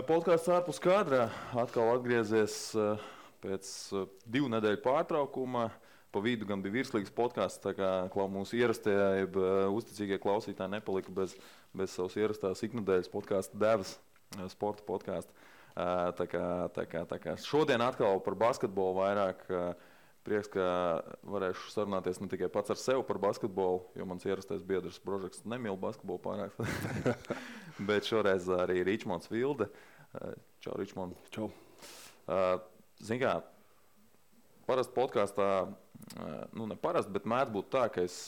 Podkāsts ārpus kadra atkal atgriezies pēc 2 nedēļu pārtraukuma. Pa vidu gan bija virslīgas podkāsts, tā kā mūsu ierastie, uzticīgie klausītāji nepalika bez savas ierastās iknedēļas podkāsta devas, sporta podkāsta. Tā kā šodien atkal par basketbolu vairāk. Prieks, ka varēšu sarunāties ne tikai pats ar sevi par basketbolu, jo mans ierastais biedrs Brožeks nemīl basketbolu pārāk. Bet šoreiz arī Ričmonds Vilde. Čau, Ričmond. Čau. Zini kā, parasti podkāstā, ne parasti, bet mēdz būt tā, ka es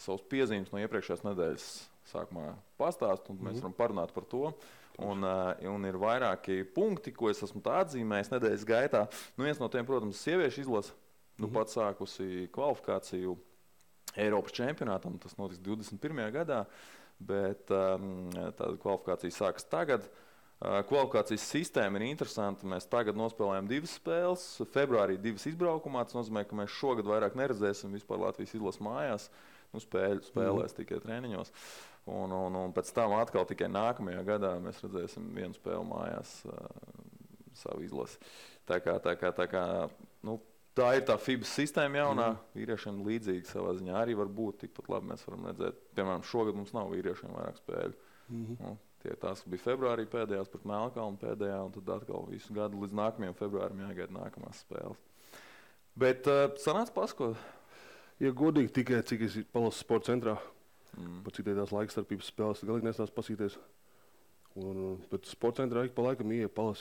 savus piezīmes no iepriekšējās nedēļas sākumā pastāstu, un mēs varam parunāt par to. Un ir vairāki punkti, ko es esmu tā atzīmējis nedēļas gaitā. Viens no tiem, protams, sieviešu izlase. Pat sākusi kvalifikāciju Eiropas čempionātam, tas notiks 21. gadā, bet tāda kvalifikācija sākas tagad. Kvalifikācijas sistēma ir interesanta. Mēs tagad nospēlējam 2 spēles, februārī 2 izbraukumā. Tas nozīmē, ka mēs šogad vairāk neredzēsim vispār Latvijas izlases mājās. Spēlēs tikai treniņos. Un pēc tam atkal tikai nākamajā gadā mēs redzēsim 1 spēli mājās savu izlasi. Tā ir tā FIBA sistēma jaunā, vīriešiem līdzīga savā ziņā arī var būt, tikpat labi mēs varam redzēt. Piemēram, šogad mums nav vīriešiem vairāk spēļu. Tie tās, kas bija februārī pēdējās pret Melnkalni pēdējā, un tad atkal visu gadu līdz nākamajam februārim jāgaida nākamās spēles. Bet sanāca pasko? Ja godīgi tikai, cik es palasu sporta centrā, par cik tās laikstarpības spēles, galīgi nestāstu pasīties. Bet sporta centrā ik pa laikam ieja palas,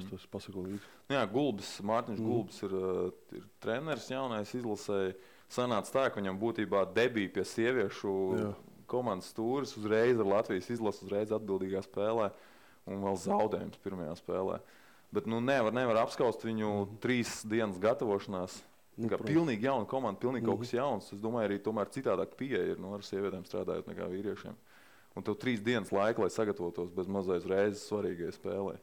tas pasako līdzi. Jā, Mārtiņš Gulbis ir treneris jaunais izlasēji. Sanāca tā, ka viņam būtībā debija pie sieviešu komandas stūris uzreiz ar Latvijas izlasu, uzreiz atbildīgā spēlē un vēl zaudējums pirmajā spēlē. Bet nevar apskaust viņu 3 dienas gatavošanās. Pilnīgi jauna komanda, pilnīgi kaut kas jauns. Es domāju, arī tomēr citādāk pieeja ir ar sievietēm strādājot nekā vīriešiem. Un tev 3 dienas laika, lai sagatavotos bez mazais reizes svarīgai spēlē.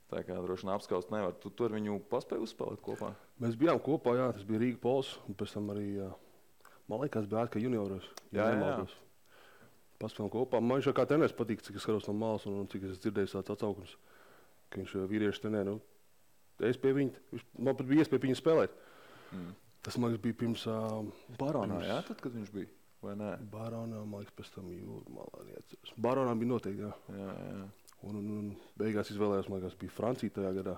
Tā kā droši vien apskaust nevar. Tu ar viņu paspēji uzspēlēt kopā? Mēs bijām kopā, tas bija Rīga Pols, un pēc tam arī, man liekas, bija kā junioros. Jā. Paspēlējām kopā. Man viņš kā treneris patīk, cik es skatos no malas un cik es dzirdēju tāds atsaukums, ka viņš vīrieši trenē. Es pie viņa, man pat bija iespēja viņu spēlēt. Tas, man liekas, bija pirms Baronā, tad, kad viņš bija? Vai nē? Baronā, man liekas, pēc tam Jūrmalā neatceros. Baronā bija noteikti, jā. Un beigās izvēlējās, man liekas, bija Francija tajā gadā.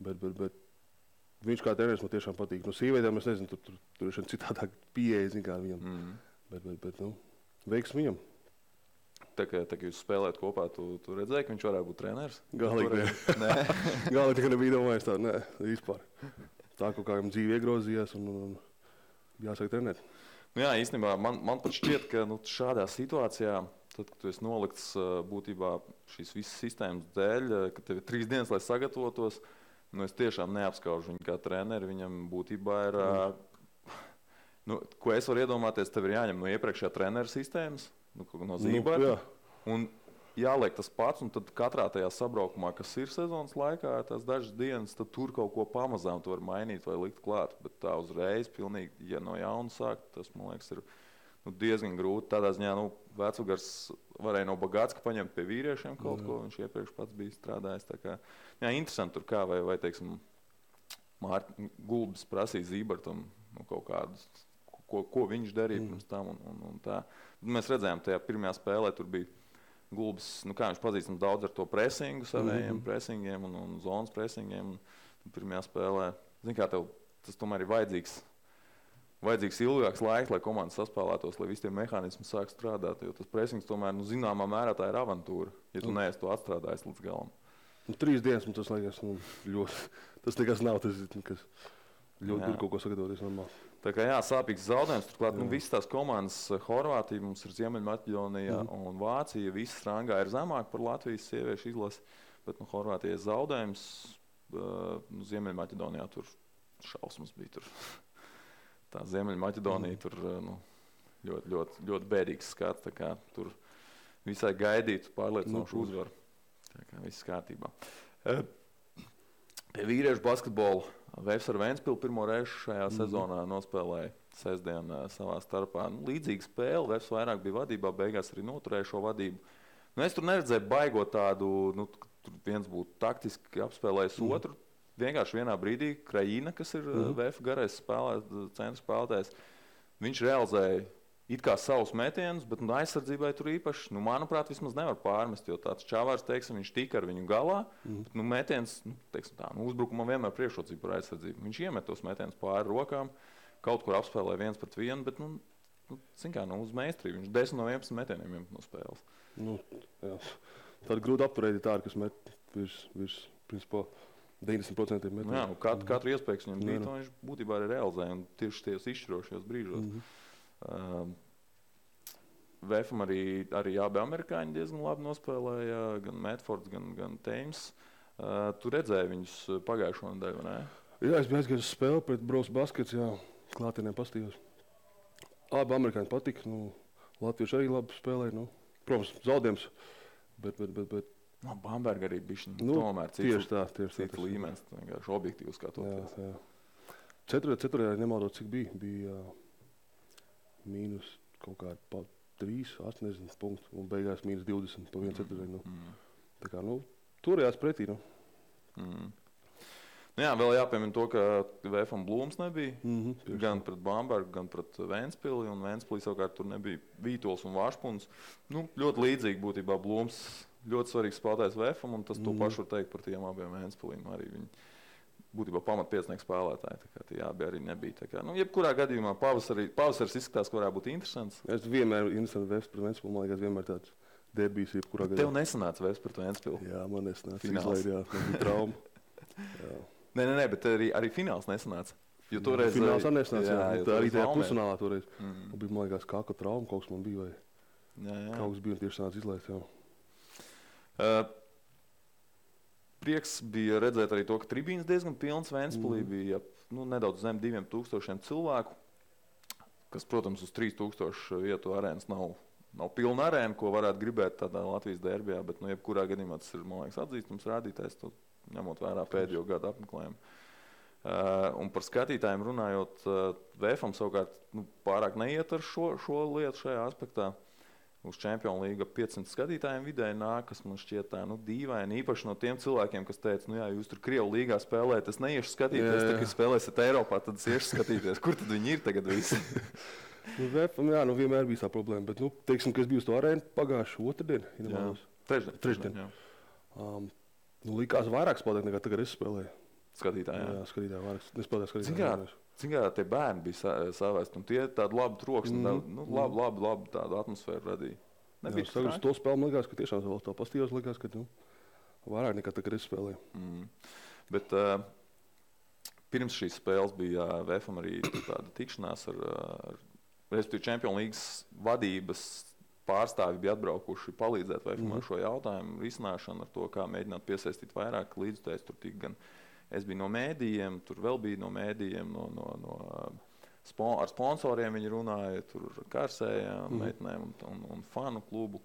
Bet viņš kā treneris man tiešām patīk. No sievietēm es nezinu, tur ir citādāk pieeja, zin kā viņam. Bet veiks viņam. Tā kā jūs spēlēt kopā, tu redzēji, ka viņš varētu būt treneris? Galīgi nē. Galīgi tikai nebija domājis tā, nē, vispār. Tā kaut kā viņam dzīve iegrozījās un jāsāk trenēt. Jā, īstenībā man pat šķiet, ka šādā situācijā, tad, kad tu esi nolikts būtībā šīs visas sistēmas dēļ, ka tev ir 3 dienas, lai sagatavotos, es tiešām neapskaužu viņu kā treneri. Viņam būtībā ir, ko es varu iedomāties, tev ir jāņem no iepriekšējā trenera sistēmas, no Zīberta, un jāliek tas pats, un tad katrā tajā sabraukumā, kas ir sezonas laikā, tās dažas dienas, tad tur kaut ko pamazām tu var mainīt vai likt klāt. Bet tā uzreiz, pilnīgi, ja no jauna sākt, tas, man liekas, ir diezgan grūti. Tādā ziņā, Vecugars varēja no Bagātska paņemt pie vīriešiem kaut ko, viņš iepriekš pats bija strādājis. Tā kā, interesanti tur kā, vai teiksim, Gulbis prasīja Zībertam kaut kādus, ko viņš darīja pirms tam un tā. Mēs redzējām, tajā pirmajā spēlē tur bija Gulbis, kā viņš pazīstams daudz ar to presingu, savējiem presingiem un zonas presingiem. Pirmajā spēlē, zini kā tev, tas tomēr ir vajadzīgs ilgāks laiks, lai komanda saspēlētos, lai visi tie mehānismi sāk strādāt, jo tas presings tomēr, zināmā mērā tā ir avantūra, ja tu neesi to atstrādājis līdz galam. 3 dienas, tas liekas, ļoti, tas nekas nav, tas nekas. Ļoti ir kaut ko sagatavoties normāli. Tā kā sāpīgs zaudējums. Turklāt, visas tās komandas, Horvātija, mums ir Ziemeļmaķedonija un Vācija, visas rangā ir zemāk par Latvijas sieviešu izlasi, bet Horvātijai zaudējums, Ziemeļmaķedonijā tur šausmas bija tur. Tā Ziemeļmaķedonija tur ļoti bēdīgs skats, tā kā tur visai gaidītu pārliecinošu uzvaru. Tā kā viss kārtībā. Pie vīriešu basketbola Vēfs ar Ventspili pirmo reizi šajā sezonā nospēlēja sestdien savā starpā. Līdzīga spēle, Vēfs vairāk bija vadībā, beigās arī noturēja šo vadību. Es tur neredzēju baigot tādu, tur viens būtu taktiski apspēlējis otru. Vienkārši vienā brīdī Krajina, kas ir VF garais centra spēlētājs, viņš realizēja it kā savus metienus, bet aizsardzībai tur īpaši, manuprāt, vismaz nevar pārmest, jo tāds Čavārs, teiksim, viņš tika ar viņu galā, bet metiens, teiksim tā, uzbrukumam vienmēr priekšrocība par aizsardzību. Viņš iemet tos metienus pāri rokām, kaut kur apspēlē 1-1, bet, zin kā, uz meistarību. Viņš 10 no 11 metieniem iemet no spēles. Tāda grūta apturēt ir tāda, kas met virs principā, 90% metienu. Jā, katru iespēju viņam bija, viņš būtībā arī realizēja, un tieši tajos izšķirošajos brīžos. VFam arī abi amerikāņi diezgan labi nospēlēja, gan Medfords, gan Teims. Tu redzēji viņus pagājušo nedēļu, vai ne? Jā, es biju aizgājis uz spēli pret Bros Baskets, klātienē pastījos. Abi amerikāņi patika, latvieši arī labi spēlēja, protams, zaudējums, bet Bamberga arī bišķiņ, tomēr cits līmenis, vienkārši objektīvs kā toties. Ceturtajā nemaldot, cik bija mīnus kaut kādi pa 3, 80 punktu, un beigās mīnus 20 pa 1-4. Tā kā, turējās pretī, Jā, vēl jāpiemina to, ka VFam Blūms nebija, gan pret Bambergu, gan pret Ventspili, un Ventspilī savukārt tur nebija Vītols un Vašpuns. Ļoti līdzīgi būtībā Blūms ļoti svarīgs spēlētājs VFam, un tas to pašu var teikt par tiem abiem Ventspilīm. Arī viņi būtībā pamatpiecinieki spēlētāji, tā kā tie abi arī nebija. Tā kā, jebkurā gadījumā pavasaris izskatās, ka varētu būt interesants. Es vienmēr interesanti VF pret Ventspili, man liekas, vienmēr tāds derbijs jebkurā gadījumā. Tev nesanāca VF pret Ventspili? Jā, man nesanāca. Izlaid, man bija trauma. Nē, bet arī fināls nesanāca. Jo toreiz fināls arī nesanāca, tā arī tajā pusfinālā toreiz. Bija, man liekas, kāka trauma, kaut kas man bija, vai kaut kas bija un tieši sanāca izlaist, Prieks bija redzēt arī to, ka tribīns diezgan pilns. Ventspilī bija nedaudz zem 2000 cilvēku, kas, protams, uz 3000 vietu arēnas nav pilna arēna, ko varētu gribēt tādā Latvijas derbijā, bet jebkurā gadījumā tas ir, man liekas, atzīstams rādītājs, ņemot vērā pēdējo gadu apmeklējumu. Un par skatītājiem runājot, VFam savukārt pārāk neiet ar šo lietu šajā aspektā. Uz Čempionu līga 500 skatītājiem vidēji nāk, kas man šķiet tā dīvaini. Īpaši no tiem cilvēkiem, kas teica, jūs tur Krievu līgā spēlējat, es neiešu skatīties, tad, kad spēlēsiet Eiropā, tad es iešu skatīties. Kur tad viņi ir tagad visi? VFam, vienmēr bija tā problēma, bet, teiksim, ka es biju uz to arēnu pagājušu otrdienu. Trešdien. Likās vairāk spēlēt nekā tagad es spēlēju. Skatītāji, jā, skatītāji vairāk. Nespēlēju skatītāji. Cik kā tie bērni bija savēsti, un tie tādu labu troksni, labu tādu atmosfēru radīja. Jā, uz to spēli man liekas, ka tiešām vēl tā pastījos, liekas, ka vairāk nekā tagad es spēlēju. Bet pirms šīs spēles bija VFam arī tāda tikšanās ar respektīvi Čempionu līgas vadības pārstāvi bija atbraukuši palīdzēt VFam ar šo jautājumu risināšanu, ar to, kā mēģināt piesaistīt vairāk līdzutējus. Tur tika gan es biju no mēdījiem, tur vēl bija no mēdījiem, ar sponsoriem viņi runāja, tur Kārsējām, meitenēm un fanu klubu.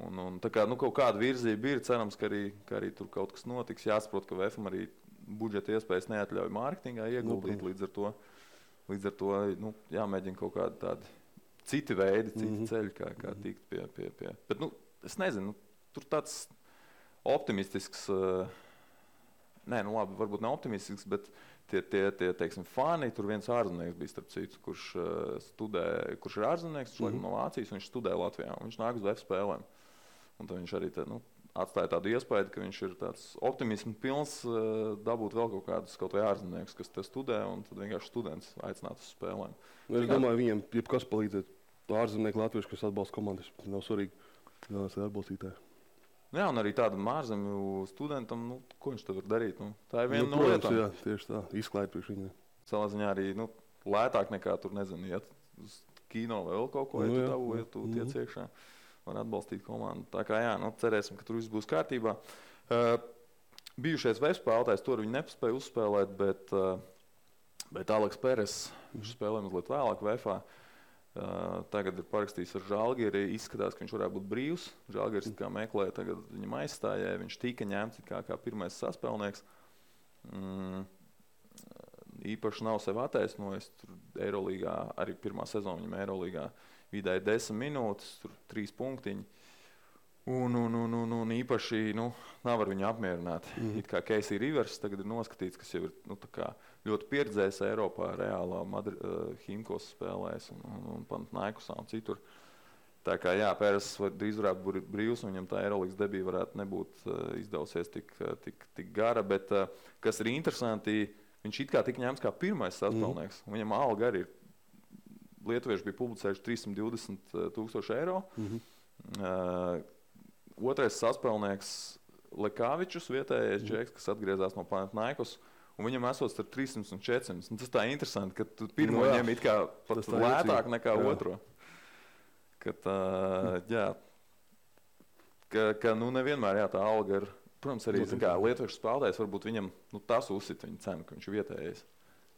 Un tā kā kaut kāda virzība ir, cerams, ka arī tur kaut kas notiks. Jāsaprot, ka VFam arī budžeta iespējas neatļauj mārketingā ieguldīt, līdz ar to jāmēģina kaut kādi tādi citi veidi, citi ceļi, kā tikt pie. Bet, es nezinu, tur tāds optimistisks, labi, varbūt ne optimistisks, bet tie teiksim, fani, tur viens ārzemnieks bija, starp citu, kurš ir ārzemnieks, no Vācijas, un viņš studē Latvijā, un viņš nāk uz VF spēlēm. Un tad viņš arī atstāja tādu iespēju, ka viņš ir tāds optimismu pilns dabūt vēl kaut vai ārzemnieks, kas te studē, un tad vienkārši students aicināt uz spēlēm. Es domāju, viņiem jebkas palīdzēt. Ārzemnieki latvieši, kas atbalsta komandas, nav svarīgi, galvenais ir atbalstītāji. Jā, un arī tādam ārzemju studentam, ko viņš tad var darīt? Tā ir viena no protams, lietām. Jā, tieši tā, izklaid priekš viņiem. Savā ziņā arī lētāk nekā tur, nezinu, iet uz kino vai vēl kaut ko, ja tu tiec iekšā, var atbalstīt komandu. Tā kā jā, cerēsim, ka tur viss būs kārtībā. Bijušais VF spēlētājs, tur viņi nepaspēja uzspēlēt, bet Aleks Peres, viņš spēlē mazliet vēlāk VFā. Tagad ir parakstījis ar Žalgiri, izskatās, ka viņš varētu būt brīvs. Žalgiris kā meklē, tagad viņam aizstājēja, viņš tika ņemts kā pirmais saspēlnieks. Īpaši nav sev attaisnojis, tur Eirolīgā, arī pirmā sezona viņam Eirolīgā vidēji 10 minūtes, tur 3 punktiņi. Un īpaši nav ar viņu apmierināt. It kā Casey Rivers tagad ir noskatīts, kas jau ir tā kā ļoti pieredzējis Eiropā, reālā Himkos spēlēs un Panathinaikosā un citur. Tā kā jā, Pēras drīz varētu būt brīvs, un viņam tā Eirolandes debija varētu nebūt izdevusies tik gara, bet kas ir interesanti, viņš it kā tika ņemts kā pirmais saspēlnieks. Viņam alga arī ir, lietuvieši bija publicējuši 320,000 eiro. Otrais saspēlnieks Lekāvičus, vietējais džeks, kas atgriezās no Panathinaikos, un viņam esot starp 300 un 400. Un tas tā interesanti, ka tu pirmo ņem it kā pat lētāk nekā otro. Ka nevienmēr tā alga ir, protams, arī lietuviešu spēlētājs, varbūt viņam tas uzsit viņa cenu, ka viņš ir vietējais.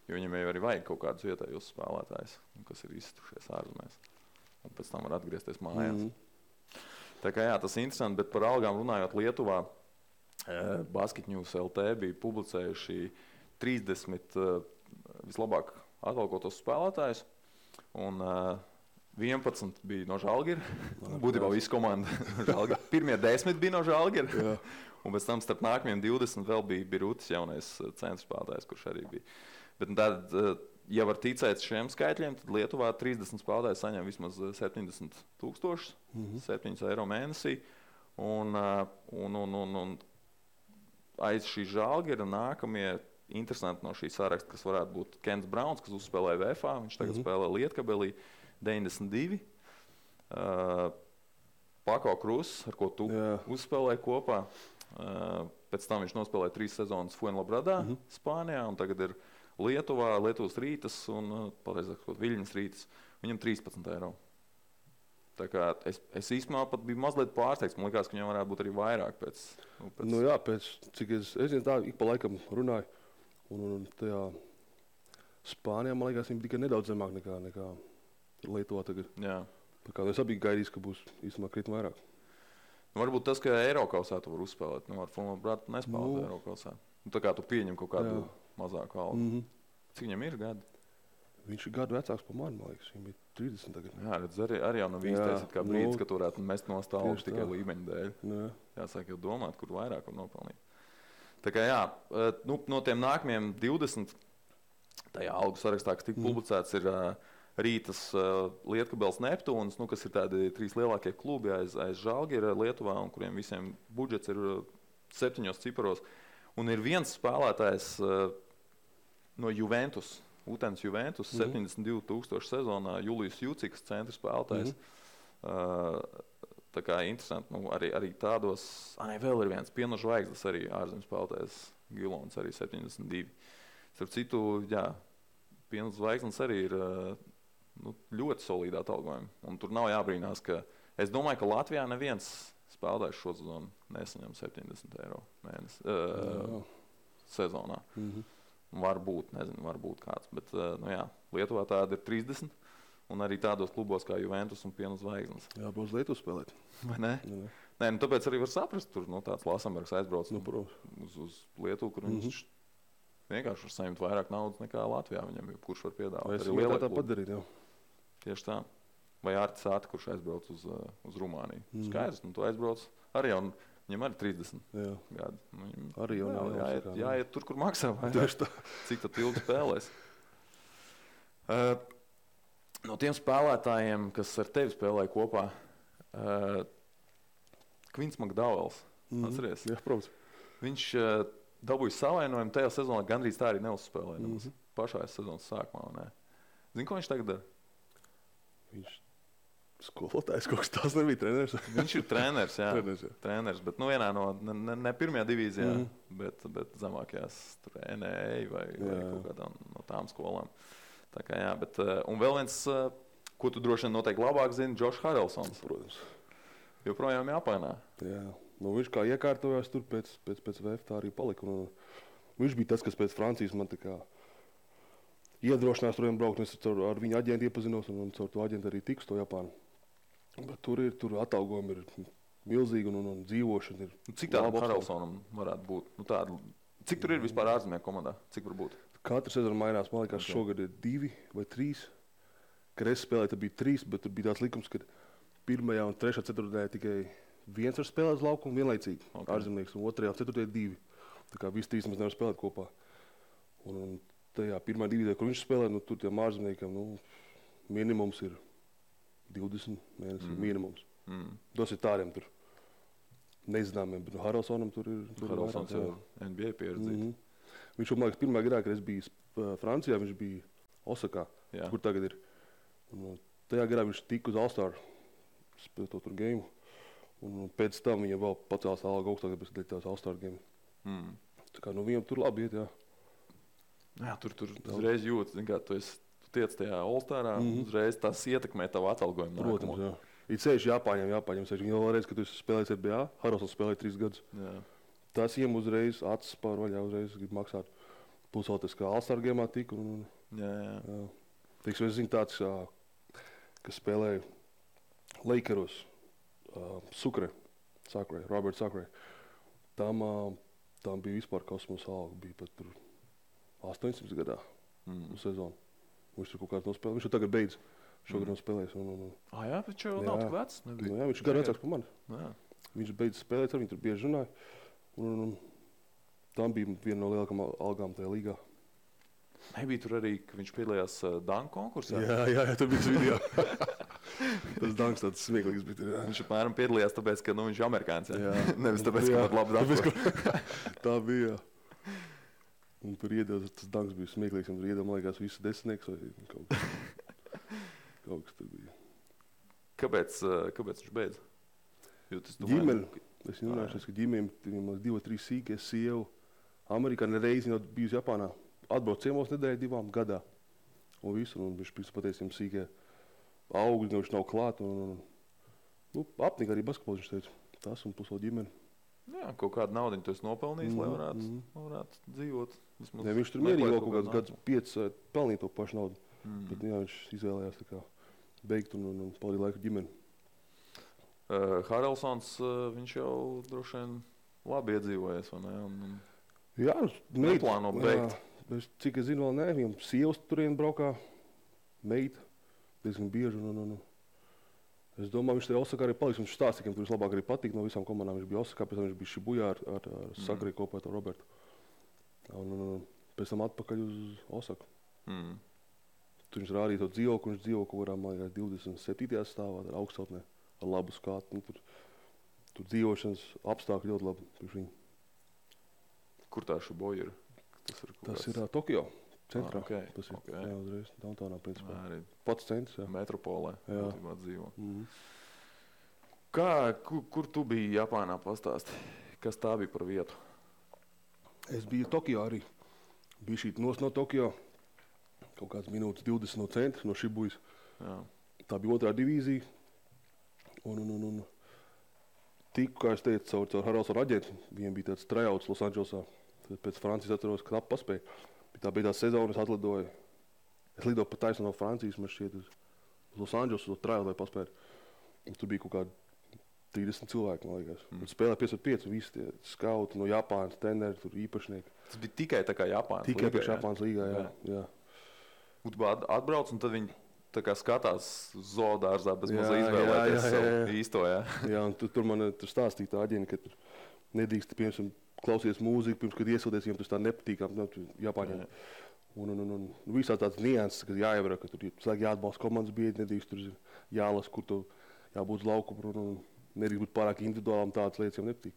Jo viņam jau arī vajag kaut kādus vietējos spēlētājus, kas ir iztušies ārzemēs. Un pēc tam var atgriezties mājās. Tā kā tas ir interesanti, bet par algām runājot Lietuvā, Basket News LT bija publicējuši 30 vislabāk atalgotos spēlētājus, un 11 bija no Žalgira. Būtībā visa komanda no Žalgira. Pirmie 10 bija no Žalgira, un pēc tam starp nākamajiem 20 vēl bija Birutis, jaunais centra spēlētājs, kurš arī bija. Bet tad, ja var ticēt šiem skaitļiem, tad Lietuvā 30 spēlētāji saņem vismaz 70,000, 7 eiro mēnesī. Un aiz šī Žalgira nākamie interesanti no šī saraksta, kas varētu būt Kents Brauns, kas uzspēlēja VFA, viņš tagad spēlē Lietkabelī, 92. Pako Krus, ar ko tu uzspēlēji kopā. Pēc tam viņš nospēlēja 3 sezonas Fuenlabradā, Spānijā, un tagad ir Lietuvā, Lietuvas Rītas un, pareizāk sakot, Viļņas Rītas. Viņam 13 eiro. Tā kā es īstenībā pat biju mazliet pārsteigts. Man likās, ka viņam varētu būt arī vairāk pēc... Cik es zinu, tā ik pa laikam runāju. Un tajā Spānijā, man liekas, viņi tikai nedaudz zemāk nekā Lietuvā tagad. Jā. Tā kā es abi gaidīju, ka būs īstenībā krietni vairāk. Varbūt tas, ka Eirokausā tu var uzspēlēt. Ar Fuenlabradu nespēlēt Eirokausā. Tā kā tu pieņem kaut kādu mazāku algu. Cik viņam ir gadi? Viņš ir gadu vecāks par mani, man liekas. Viņam bija 30 tagad. Jā, redz, arī jau nav īstais kā brīdis, ka tu varētu mest no stāvus tikai līmeņa dēļ. Jāsāk jau domāt, kur vairāk var nopelnīt. Tā kā no tiem nākamajiem 20 tajā algu sarakstā, kas tika publicēts, ir Rītas, Lietkabels, Neptūns, kas ir tādi 3 lielākie klubi aiz Žalgira Lietuvā, un kuriem visiem budžets ir 7 ciparos. Un ir viens spēlētājs no Juventus, Utens Juventus, 72,000 sezonā, Julijus Juciks, centra spēlētājs. Tā kā interesanti, arī tādos, vēl ir viens Piena Zvaigznes, arī ārzemju spēlētājs, Gilons, arī 72. Starp citu, Piena Zvaigznes arī ir ļoti solīdā atalgojuma. Un tur nav jābrīnās, ka es domāju, ka Latvijā neviens spēlētājs šo sezonu nesaņem 70 eiro sezonā. Varbūt kāds, bet Lietuvā tāda ir 30, un arī tādos klubos kā Juventus un Piena Zvaigznes. Jā, būs Lietuvu spēlēt. Vai ne? Nē, tāpēc arī var saprast, tur tāds Lasambergs aizbrauc uz Lietuvu, kur viņš vienkārši var saņemt vairāk naudas nekā Latvijā viņam, kurš var piedāvāt. Es arī tā padarīt, jā. Tieši tā. Vai Ārtis Āti, kurš aizbrauc uz Rumāniju. Skaidrs, tu aizbrauc arī jau, viņam arī 30 gadi. Arī jau jāiet tur, kur maksā. Cik tad ilgi spēlēs. No tiem spēlētājiem, kas ar tevi spēlēja kopā, Kvins Makdauels, atceries? Jā, protams. Viņš dabūja savainojumu tajā sezonā, gandrīz tā arī neuzspēlēja. Pašā sezonas sākumā. Ne? Zini, ko viņš tagad dara? Viņš skolotājs kaut kas tāds nebija treneris. Viņš ir treneris, jā. Treneris, bet vienā no, ne pirmajā divīzijā, bet zemākajās tur NEA vai kaut kādā no tām skolām. Tā kā jā, bet, un vēl viens, ko tu droši vien noteikti labāk zini, Džošs Harelsons. Protams. Joprojām Japānā. Jā, viņš kā iekārtojās tur pēc VF tā arī palika. Viņš bija tas, kas pēc Francijas man tā kā iedrošinās turiem braukt, un es ar viņu aģentu iepazinos, un caur to aģentu arī tiku uz to Japānu. Bet tur atalgojumi ir milzīgi, un dzīvošana ir... Cik tādu Harelsonam varētu būt? Cik tur ir vispār ārzemē komandā? Cik var būt? Katru sezonu mainās, man liekas, šogad ir 2 vai 3. Kad es spēlēju, tad bija 3, bet tur bija tāds likums, ka 1. un 3. ceturtdienā tikai viens var spēlēt uz laukumu vienlaicīgi, ārzemnieks, un otrajā, ceturtajā 2. Tā kā visi 3 mēs nevar spēlēt kopā. Un tajā pirmā divīdē, kur viņš spēlē, nu, tur tiem ārzemniekam, nu, minimums ir 20 mēnesi, minimums. Tas ir tādiem tur nezināmiem, bet Haralsonam tur ir Haralsons jau NBA pieredzīts. Viņš, man liekas, pirmā gadā, kad es biju Francijā, viņš bija Osakā, kur tagad ir. Un tajā gadā viņš tika uz All-Star spēlēt to tur game. Un pēc tam viņam vēl pacēlās alga augstāk, bet tās All-Star game. Tā kā, nu, viņam tur labi iet, jā. Jā, tur uzreiz jūtas, zin kā, tu tiec tajā All-Starā, uzreiz tas ietekmē tavu atalgojumu. Protams, jā. Ir ceļš jāpāņem. Viņi vēl reiz, kad tu spēlēsi NBA, Haralsons spēlēja 3 gadus. Jā. Tas viņam uzreiz acis pārvaļā, uzreiz grib maksāt. Plus vēl tas, kā All-Star game'ā tika. Jā. Teiksim, es zinu tāds, kas spēlēja Lakeros, Robert Sacre. Tam bija vispār kosmosa alga, bija pat tur 800 gadā uz sezonu. Viņš tur kaut kāds nospēlē, viņš jau tagad beidz. Šogad nav spēlējis. Jā, viņš jau nav tik vecs. Jā, viņš ir gadu vecāks par mani. Viņš beidz spēlēt, ar viņu tur bieži runāja. Tam bija viena no lielākām algām tajā līgā. Nebija tur arī, ka viņš piedalījās danku konkursā? Jā, tur bija tas video. Tas danks tāds smieklīgs bija. Jā. Viņš apmēram piedalījās tāpēc, ka viņš ir amerikāns. Nevis tāpēc, ka var labi danku. Tā bija, jā. Un tur iedod, tas danks bija smieklīgs, un tur iedod, man liekas, visu desmitnieks vai kaut kas tur bija. Kāpēc viņš beidz? Ģimene. Es runāšu, ka ģimēm 2-3 sīki, es sievu Amerikā nereizi jau bijusi Japānā. Atbrauc ciemos nedēļu 2 gadā. Un visu, un viņš pateica, sīkie augļi, viņš nav klāt. Apnika arī basketbolu, viņš teica. Tas un plus vēl ģimene. Jā, kaut kādu naudu tu esi nopelnījis, lai varētu dzīvot. Ne, viņš tur mierīgi vēl kaut kādus 5 pelnīt to pašu naudu. Bet jā, viņš izvēlējās tā kā beigt un pavadīt laiku ģimeni. Haralsons, viņš jau droši vien labi iedzīvojies, vai ne? Jā, neplāno beigt. Cik es zinu, vēl ne. Viņam sievas turien braukā, meita, diezgan bieži. Es domāju, viņš tajā Osakā arī paliks. Viņš stāstīja, ka tur vislabāk arī patīk no visām komandām. Viņš bija Osakā, pēc tam viņš bija Šibujā ar Sakri kopā ar Robertu. Un pēc tam atpakaļ uz Osaku. Tur viņš rādīja to dzīvokli, viņš dzīvo kaut kādā, man liekas, 27. stāvā, ar augstotnē, ar labu skatu. Tur dzīvošanas apstākļi ļoti labi priekš viņu. Kur tā Šibuja ir? Tas ir Tokio centrā. Tas ir, jā, uzreiz, downtownā, principā. Arī pats centrs, jā. Metropolē, jā. Dzīvo. Kur tu biji Japānā, pastāsti? Kas tā bija par vietu? Es biju Tokio arī. Biju šīt no Tokio. Kaut kāds minūtes 20 no centra, no Šibujas. Tā bija 2. divīzija. Un tiku, kā es teicu, caur Haralsona aģentu. Viņiem bija tāds tryouts Losandželosā. Pēc Francijas atceros, ka knapi paspēja. Tā bija tā sezona, es atlidoju. Es lidoju pa taisnu no Francijas, man šķiet uz Losandželosu, to tryout, lai paspētu. Un tur bija kaut kādi 30 cilvēki, man liekas. Spēlē 5-5, visi tie skauti no Japānas, treneri, tur īpašnieki. Tas bija tikai tā kā Japānas līgā? Tikai priekš Japānas līgā, jā. Atbrauc un tad viņi tā kā skatās zoodārzā bez mazā izvēlēties savu īsto, jā. Jā, un tur man stāstīja tā aģeni, ka tur nedrīkst, piemēram, klausies mūziku, pirms, kad iesildies, viņiem tas tā nepatīkam, Japāņiem. Un visā tāds nianses, ka jāievara, ka tur jāatbalsta komandas biedri, nedrīkst tur jālas, kur tu jābūt uz laukumu, un nedrīkst būt pārāk individuāli, tādas lietas jau nepatīk.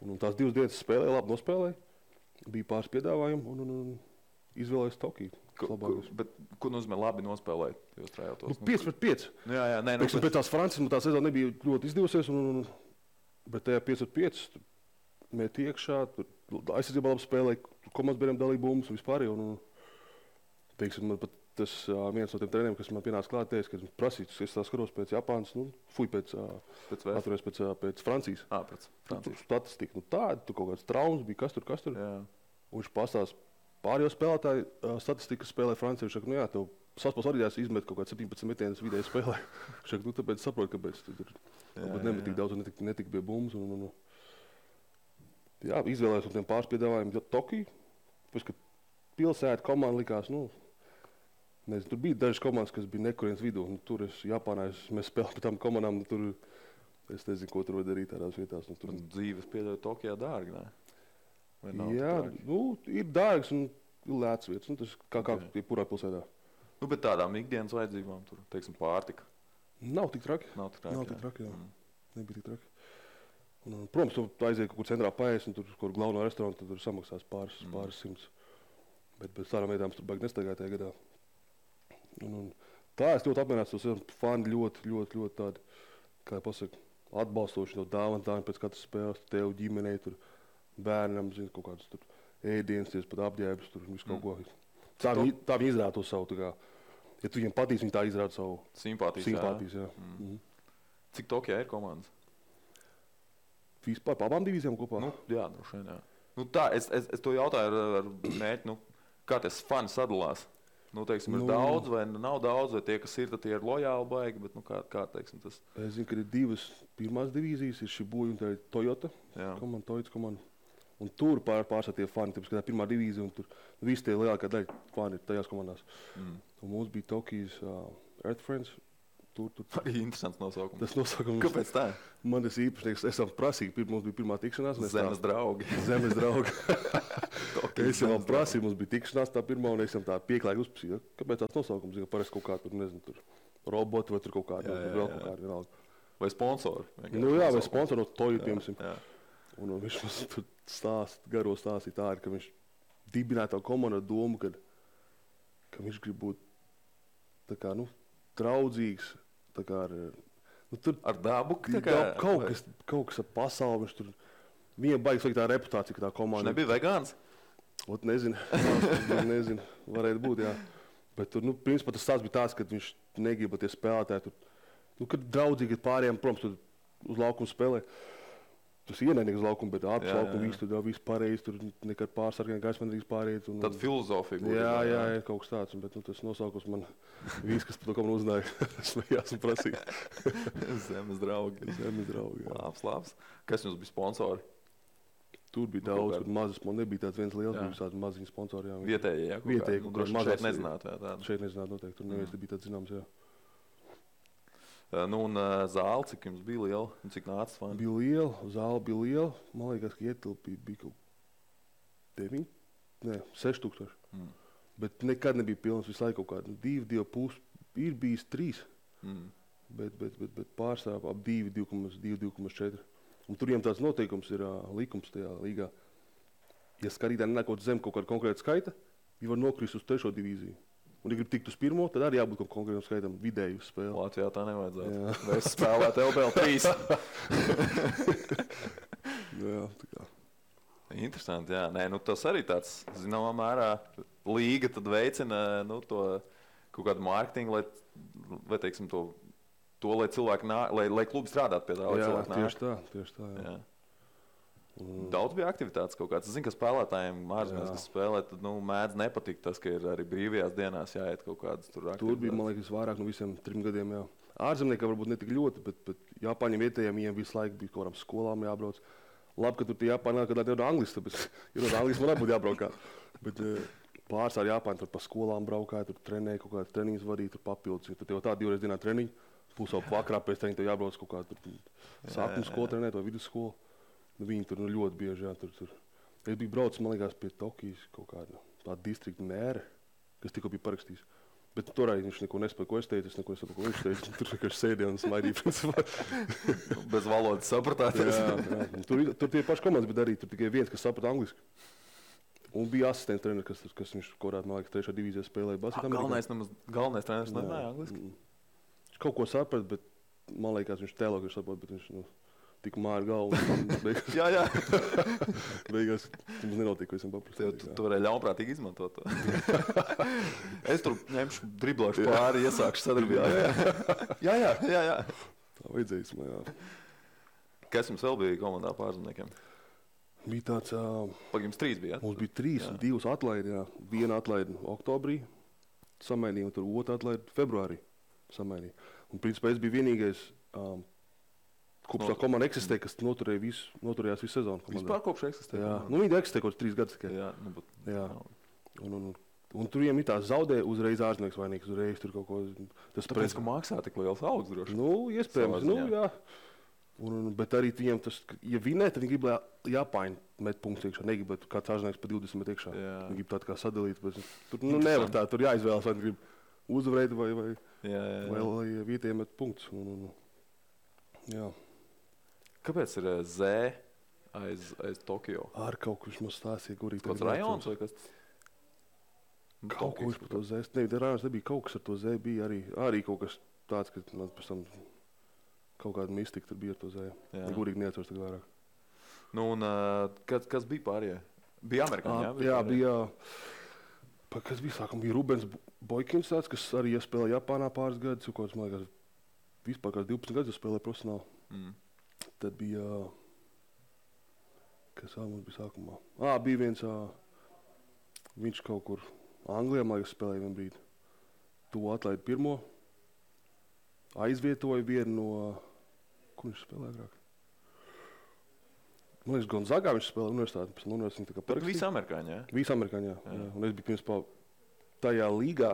Un tās 2 dienas spēlēja, labi nospēlēja, bija pāris piedāvājumi, un izvēlējos Tokiju. Bet ko nozīmē labi nospēlēt? 5-5. Jā, nē. Pēc tās Francijas tā sezona nebija ļoti izdevusies, bet tajā 5-5 mēt iekšā, aizsardzībā labi spēlēja, komandas biedriem dalīja bumbas un vispār. Teiksim, man pat tas viens no tiem treneriem, kas man pienāca klāt, teica, ka prasīts, es tā skatos pēc Japānas, pēc Francijas. Pēc Francijas. Statistika, tāda, tur kaut kāds traumas bija, kas tur. Jā. Un viņš pastāst pārējo spēlētāju statistikas spēlē Francijā. Viņš saka, tev saspēles orģijās izmet kaut kāds 17 metienus vidēji spēlē. Viņš saka, tāpēc saproti, kāpēc tur nebija tik daudz un netika bija bumbas. Jā, izvēlējos no tiem pāris piedāvājumiem Tokiju. Pēc, kad pilsēta komanda likās, nezinu, tur bija dažas komandas, kas bija nekurienes vidū. Tur Japānā mēs spēlējām pēc tām komandām, tur Es nezinu, ko tur var darīt tādās vietās. Nu, tur... Dzīves pieļauj Tokijā dārgi, ne? Jā, ir dārgs un lēts vietas. Nu, tas kā jebkurā pilsētā. Nu, bet tādām ikdienas vajadzībām tur, teiksim, pārtika. Nav tik traki. Nav tik traki, jā. Nebija tik traki. Un, protams, tu aiziet kaut kur centrā paēst un tur kaut kur galveno restorānu, tad tur samaksās pāris simts. Bet tādām vietām tur baigi nestaigāja tajā gadā. Un tā es ļoti apmierināts, tos fani ļoti tādi, kā pasaka, atbalstoši no dāvana pēc katras spēles, tev ģimenei, tur bērnam, zini, kaut kādas tur ēdienas, pat apģērbs, tur visu kaut ko. Tā viņi izrāda to savu, tā kā, ja tu viņiem patīc, viņi tā izrāda savu simpātijas, jā. Cik Tokijā ir komandas? Vispār pa abām divīzijām kopā? Nu, jā, droši vien, jā. Nu tā, es to jautāju ar mērķi, kā tas fani sadalās? Nu, teiksim, ir daudz vai nav daudz, vai tie, kas ir, tad tie ir lojāli baigi, bet, kā teiksim, tas... Es zinu, ka ir divas pirmās divīzijas, ir Shibuya un tā ir Toyota komanda. Un tur pārstāv tie fani, tāpēc, ka tā pirmā divīzija, un tur visi tie lielākā daļa fani ir tajās komandās. Un mums bija Tokijas Earth Friends. Arī interesants nosaukums. Tas nosaukums... Kāpēc tā? Man tas īpašnieks, esam prasīgi, mums bija pirmā tikšanās. Zemes draugi. Zemes draugi. Es jau prasīju, mums bija tikšanās tā pirmā, un es jau tā pieklājīgi uzprasīju. Kāpēc tāds nosaukums? Parasti kaut kā tur, nezinu, tur roboti vai tur kaut kādi, vēl kaut kādi vienalga. Vai sponsori? Nu jā, vai sponsori no Toyota, piemēram. Un viņš mums tur garo stāstīja tā, ka viņš dibināja tā komandu ar domu, ka viņš grib būt tā kā, draudzīgs, tā kā ar dabu? Kaut kas ar pasauli, viņš tur, viņam baigi sliktā reputācija, ka tā komanda... Viņš nebija vegāns? Ot, nezinu, varētu būt, jā. Bet tur, principā tas stāsts bija tāds, ka viņš negriba tie spēlētāji tur, kad draudzīgi ir pārējiem, protams, tur uz laukumu spēlē. Tas ienaidnieks uz laukumu, bet ārpus laukumu viss pareizi, tur nekad pārsargiem gaisma nedrīkst pāriet. Tad filozofija būtu. Jā, kaut kas tāds, bet tas nosaukums man viss, kas par to komandu uzzināja, smējās un prasīja. Zemes draugi. Jā. Labs. Kas jums bija sponsori? Tur bija daudz, kur mazas, nebija tāds viens liels, bija tādi maziņi sponsori. Vietējie, jā? Vietējie, kur šeit nezinātu, jā? Šeit nezinātu noteikti, tur neviens bija tāds zināms, jā. Un zāle, cik jums bija liela, un cik nāca fani? Bija liela, zāle bija liela, man liekas, ka ietilpīja bija kaut 6,000. Bet nekad nebija pilns, visu laiku kaut kādu 2,5, ir bijis 3, bet pārstāv ap 2,4. Un tur viņiem tāds noteikums ir likums tajā līgā. Ja skatītāji nenāk zem kaut kāda konkrēta skaita, viņi var nokrist uz 3. divīziju. Un, ja grib tikt uz 1, tad arī jābūt kaut konkrētam skaitam vidēju spēli. Latvijā tā nevajadzētu. Vai es spēlētu LBL 3? Jā, tā kā. Interesanti, jā. Nē, tas arī tāds, zināmā mērā, līga tad veicina to kaut kādu mārketingu, lai teiksim, lai cilvēki lai klubi strādātu pie tā, lai cilvēki nāk. Tieši tā, jā. Daudz bija aktivitātes kaut kāds. Es zinu, ka spēlētājiem ārzemēs, kas spēlē, tad mēdz nepatikt tas, ka ir arī brīvajās dienās jāiet kaut kādas tur aktivitātes. Tur bija, man liekas, vairāk no visiem 3 gadiem, jā. Ārzemniekam varbūt ne tik ļoti, bet Japāņiem vietējiem viņiem visu laiku bija kaut kādām skolām jābrauc. Labi, ka tur tie Japāņi nāk, kad ir no Anglijas, tāpēc ir no Anglijas man būtu jābraukā. Bet pārstāv Japāņi tur pa skolām braukāja, tur trenēja, kaut kādas treniņas vadīja, tur papildus. Tur jau tā 2 reizes dienā treniņi, pusau vakarā pēc treniņa tev jābrauc kaut kā sākuma skolu trenēt vai vidusskolu. Viņi tur ļoti bieži, jā, tur. Es biju braucis, man liekas, pie Tokijas kaut kāda distrikta mēra, kas tikko bija parakstījis. Bet toreiz viņš neko nespēja, ko es teicu, es neko nesaprotu, ko viņš teica. Tur vienkārši sēdēja un smaidīja, principā. Bez valodas sapratāties. Jā. Tur tie paši komandas, bet arī tur tikai viens, kas saprata angliski. Un bija asistents treneris, kas viņš korāt, man liekas, 3. divīzijā spēlēja basketbolā. Galvenais treneris nemāja angliski? Viņš kaut ko saprat, bet man liekas, viņš tēlo, ka viņš saprot, bet viņš, tik māja galvu. Jā. Beigās mums nenotika, ko esam paprasīju. Tu varēji ļaunprātīgi izmantot to. Es tur ņemšu, driblāšu pāri, iesākšu sadarbību. Jā. Tā vajadzējis man, jā. Kas jums vēl bija komandā pārzemniekiem? Bija tāds... Jums 3 bija, jā? Mums bija 3, 2 atlaidi, jā. Viena atlaidi oktobrī samainīja, un tur 2 atlaidi februārī samainīja. Un principā es biju vienīgais... Kopš tā komanda eksistē, kas noturējās visu sezonu. Vispār kopš eksistē? Jā. Viņi eksistē kaut 3 gadus tikai. Jā. Un tur viņiem ir tā zaudē uzreiz ārzemnieks vainīgs, uzreiz tur kaut ko... Tāpēc, ka maksā tik liels algas droši? Iespējams. Jā. Bet arī viņiem tas, ja vinē, tad viņi grib, lai Japāņi met punktus iekšā. Negrib, bet kāds ārzemnieks pa 20 met iekšā. Viņi grib tādu kā sadalīt. Tur nevar tā, tur jāizvēlas, vai grib uzvarēt vai lai vietējiem met punktus. Jā. Kāpēc ir Z aiz Tokio? Ar kaut kurš mums stāstīja, kurī kāds rajons vai kas? Kaut kurš par to Z. Rajons nebija kaut kas ar to Z. Bija arī kaut kas tāds, ka man pēc tam kaut kāda mistika tur bija ar to Z. Gurīgi neatceros tagad vairāk. Nu, un kas bija pārējie? Bija amerikāņi, jā? Bija, kas bija sākam, bija Rubens Boikins tāds, kas arī spēlēja Japānā pāris gadus, kaut kāds, man liekas, vispār kāds 12 gadus spēlēja profesionāli. Tad bija, kas vēl mums bija sākumā? Bija viens, viņš kaut kur Anglijā, man liekas, spēlēja vien brīdi. To atlaida pirmo, aizvietoja vienu no, kur viņš spēlēja agrāk? Man liekas, Gonzagā viņš spēlēja universitāti, pēc universitāti tā kā parakstīja. Visi amerikāņi, jā? Visi amerikāņi, jā. Un es biju principā tajā līgā,